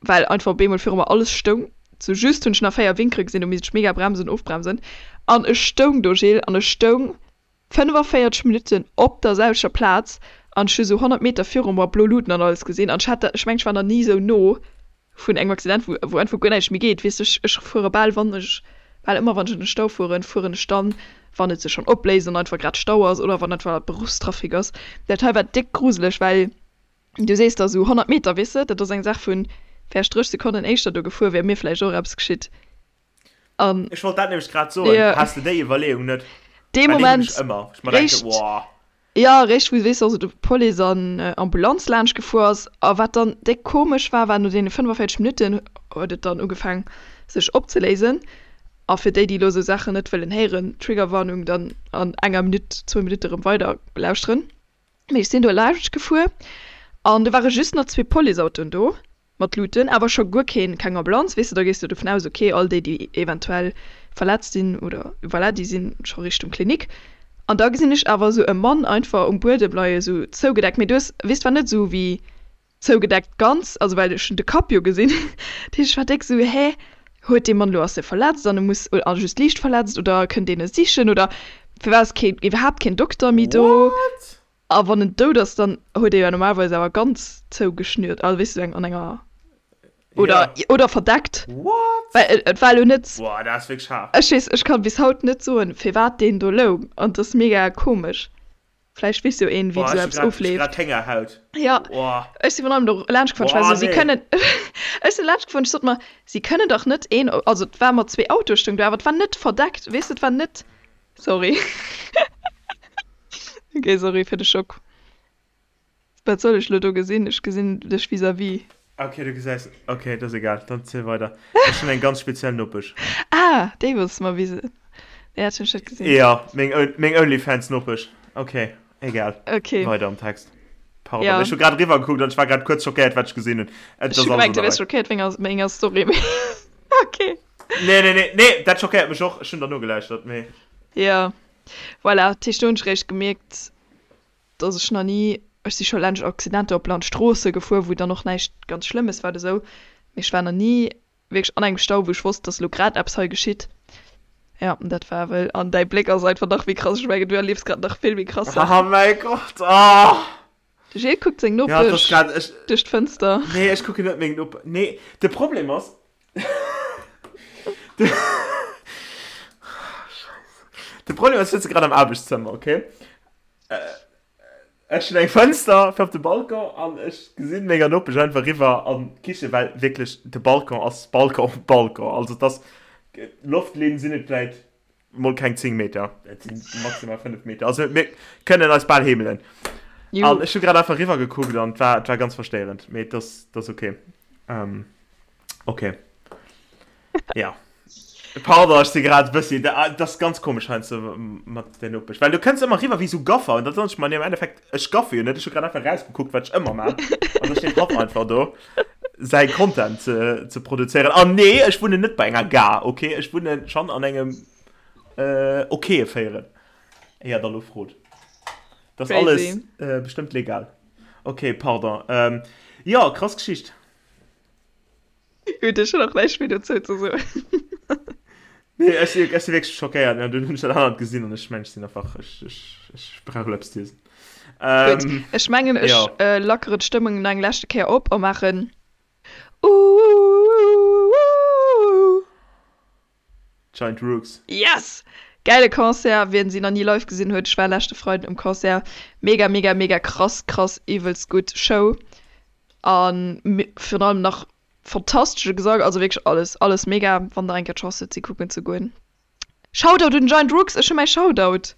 well einfach op eemol viru mer alles stoung. Sou just hunn ech nach 4 Winkere gesinn, do misst ech mega bremsen, ofbremsen an ech stoung do, Gilles, an ech stoung 45 Minutten op der selwechter Plaz an ech hu sou 100 Meter viru mer blo Luuten an alles gesinn an ech hat dat, ech mengen ech war nach ni sou no. Vun engem Accident, wou, wou einfach guer näischt méi geet, weess de. Ech, ech fuere bal, wann ech, bal ëmmer wann ech an de Stau fueren, fueren ech dann, wann et sech schonn opléist an einfach grad Stau ass oder wann einfach Beruffstrafic ass. Dat hei war déck gruseleg, well du sees da sou 100 Meter, weess de, dat ass eng Saach vun vläicht 30 Sekonnen éischter do gefuer, wär mir vläicht och eppes geschitt. An Ech wollt dat nämlech grad soen, ja. Has de déi Iwwerleeung net? Dee Well déi hunn Moment ech ëmmer, ech mer denken, réischt, Woah. Jo, réischt wou, weess de, also de Police an Ambulanz laanscht gefuer ass. A wat dann déck komesch war, war no deene 45 Minutten huet et dann ugefaang sech opzeléisen. A fir déi, déi elo esou Saachen net wëllen héieren, Triggerwarnung, dann an enger Minutt, zwou Minutte erëm weider lauschteren. Mee ech sinn do laanscht gefuer an do ware just nach zwee Policeautoen do. Mat Luuten, awer scho guer keen, keng Ambulanz, weess de, da gees de dovun aus, ok, all déi, déi eventuell verletzt sinn oder voilà, déi sinn scho Richtung Klinik. An da gesinn ech awer esou e Mann einfach um Buedem leien, esou zougedeckt, mee du hues, weess, war net esou wéi zougedeckt ganz, also well ech hunn de Kapp jo gesinn, dat heescht, ech war déck esou, hä, huet dee Mann elo, ass dee verletzt an e muss, a just liicht verletzt oder kënnt een e sichen oder firwat ass keen, iwwerhaapt keen Dokter méi do? What? A wann en dout ass, dann huet ee jo normalerweis awer ganz zougeschnürt, also weess du, eng an enger oder Ja. oder verdeckt. What? Well et war elo net, Boah, dat ass wierklech haart. ech weess, ech kann bis haut net soen, firwat deen do loung an et ass mega komesch. Vläicht weess jo een, wéi Boah, esou ech hu eppes grad, ech hu ofleeft. grad Héngerhaut. Ja, Boah. ech si virun allem do laanscht gefuer, ech war Boah, esou, si nee. kënnen, ech sinn laanscht gefuer, ech sot mer, si kënnen dach net een, also et war mat zwee Autoe stoung do, awer et war net verdeckt, weess de, et war net, sorry. Ok, sorry fir de Schock. Wat soll ech lo do gesinn? Ech gesinn dech vis-à-vis. Ok, du gesäis. Ok, dat ass egal, dann ziel weider. Ech hunn eng ganz speziell Nopesch. Ah, déi wolls de mer wisen. Nee, dat hunn ech net gesinn. Jo, meng, meng Onlyfans-Nopesch. Ok, egal. Ok. Weider am Text. Pardon, Ja. ech hu grad eriwwer gekuckt an ech war grad kuerz schockéiert, wat ech gesinn hunn. Et Ech ass hu alles gemengt, an du der wiers Rei. schockéiert wéinst menger Story, mee ok. Nee, nee, nee, nee, dat schockéiert mech och. Ech hunn der nogelauschtert, mee. Jo. Voilà, dat heescht do hunn ech réischt gemierkt, dass ech nach ni, ech si scho laanscht Accidenter op Landstroosse gefuer, wou dann och näischt ganz Schlëmmes war oder sou, mee ech war nach ni wierklech an engem Stau, wou ech wosst, dass elo grad eppes hei geschitt. Jo, an dat war wëll. An däi Bléck ass einfach nach méi krass, ech mengen, du erliefs grad nach vill méi krass Oh Saachen. mäi Gott, oh! De Gilles kuckt seng Ja, et ass Nopesch grad, ech, duerch d'Fënster. nee, ech kucken net meng Nope, nee, de Problem ass, de, Scheisse, de Problem ass, ech sëtze grad am Aarbechtszëmmer, okay? Ech hunn eng Fënster fir op de Balcon an ech gesinn menger Nopesch einfach riwwer an d'Kiche, well wierklech de Balcon ass Balcon op Balcon, also et ass, Loftlinn sinn et vläit mol keng 10 Meter, et sinn maximal 5 Meter, also mir kënnen eis bal heemelen. An ech hu grad einfach riwwer gekuckt an et war, et war ganz verstéierend, mee et ass, et ass ok. Ähm, ok. Ja. Pardon, ech si grad e bëssi, dat ass ganz komesch heiansdo mat der Nopesch, well du kënns ëmmer riwwer wéi sou Gaffer an da soen ech mer, nee, am Endeffekt, ech gaffe jo net, ech hu grad einfach rausgekuckt, wat ech ëmmer maan an da steet hatt einfach do säi Content ze, ze produzéieren. An nee, ech wunnen net bei enger Gare, ok? Ech wunnen schonn an engem äh, okaye Véierel. Éier der lo frot. Dat ass alles äh, bestëmmt legal. Ok, pardon. Ähm, jo, krass Geschicht. Gutt, ech hunn och näischt méi dozou ze soen. Nee, ech si, ech si wierklech schockéiert. Ja, dunn hunn ech dat anert gesinn an ech mengen, ech sinn einfach, ech, ech, ech brauch elo eppes z'iesen. Gutt, Ähm, ech mengen, ech jo. äh, lackeren d'Stëmmung nach eng leschte Kéier op a maachen Uuuuuuuuuuh. Giant Rooks. Yes! Gäile Concert, wien si nach ni live gesinn huet, ech war leschte Freiden um Concert, mega mega mega krass krass iwwelst gutt Show an virun allem nach fantastesche Gesang, also wierklech alles alles mega, wann der eng Kéier d'Chance hutt si kucken ze goen. Shoutout un Giant Rooks, ech hu mäi Shoutout!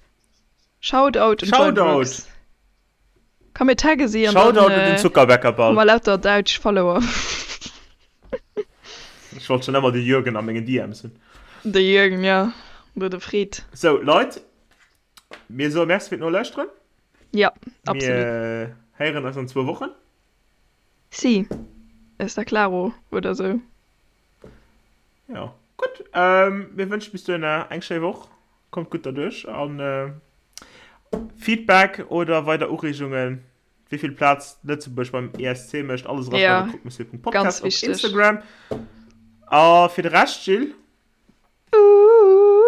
Shoutout un Giant Rooks. Shoutout! Komm mir tagge si an dann Shoutout un den hu Zuckerbäckerball. mer lauter däitsch Follower. Ech wollt schon ëmmer de Jürgen a mengen DMs hunn. De Jürgen, ja. Oder de Fred. Sou, Leit, mir soe Merci fir d'Nolauschteren. Ja, absolut. Mir héieren eis an zwou Wochen. Si, está claro, oder sou. Jo, gutt. Mir wënschen bis dohinner eng schéi Woch. Kommt gutt derduerch an Feedback oder weider Ureegungen, wéi vill Plaz Lëtzebuerg beim ESC mécht, alles eraschreiwen, Ja, croquemessieur.podcast ganz op wichteg. Instagram. A fir de Rescht, Jill?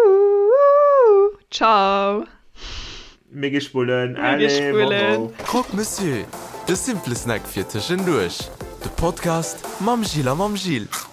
Uuuuuuh, ciao. Mir gi spullen. Mir gi Allez, spullen. bon bon. Croque Monsieur, de simple Snack fir tëschenduerch. De Podcast mam Jill a mam Gilles.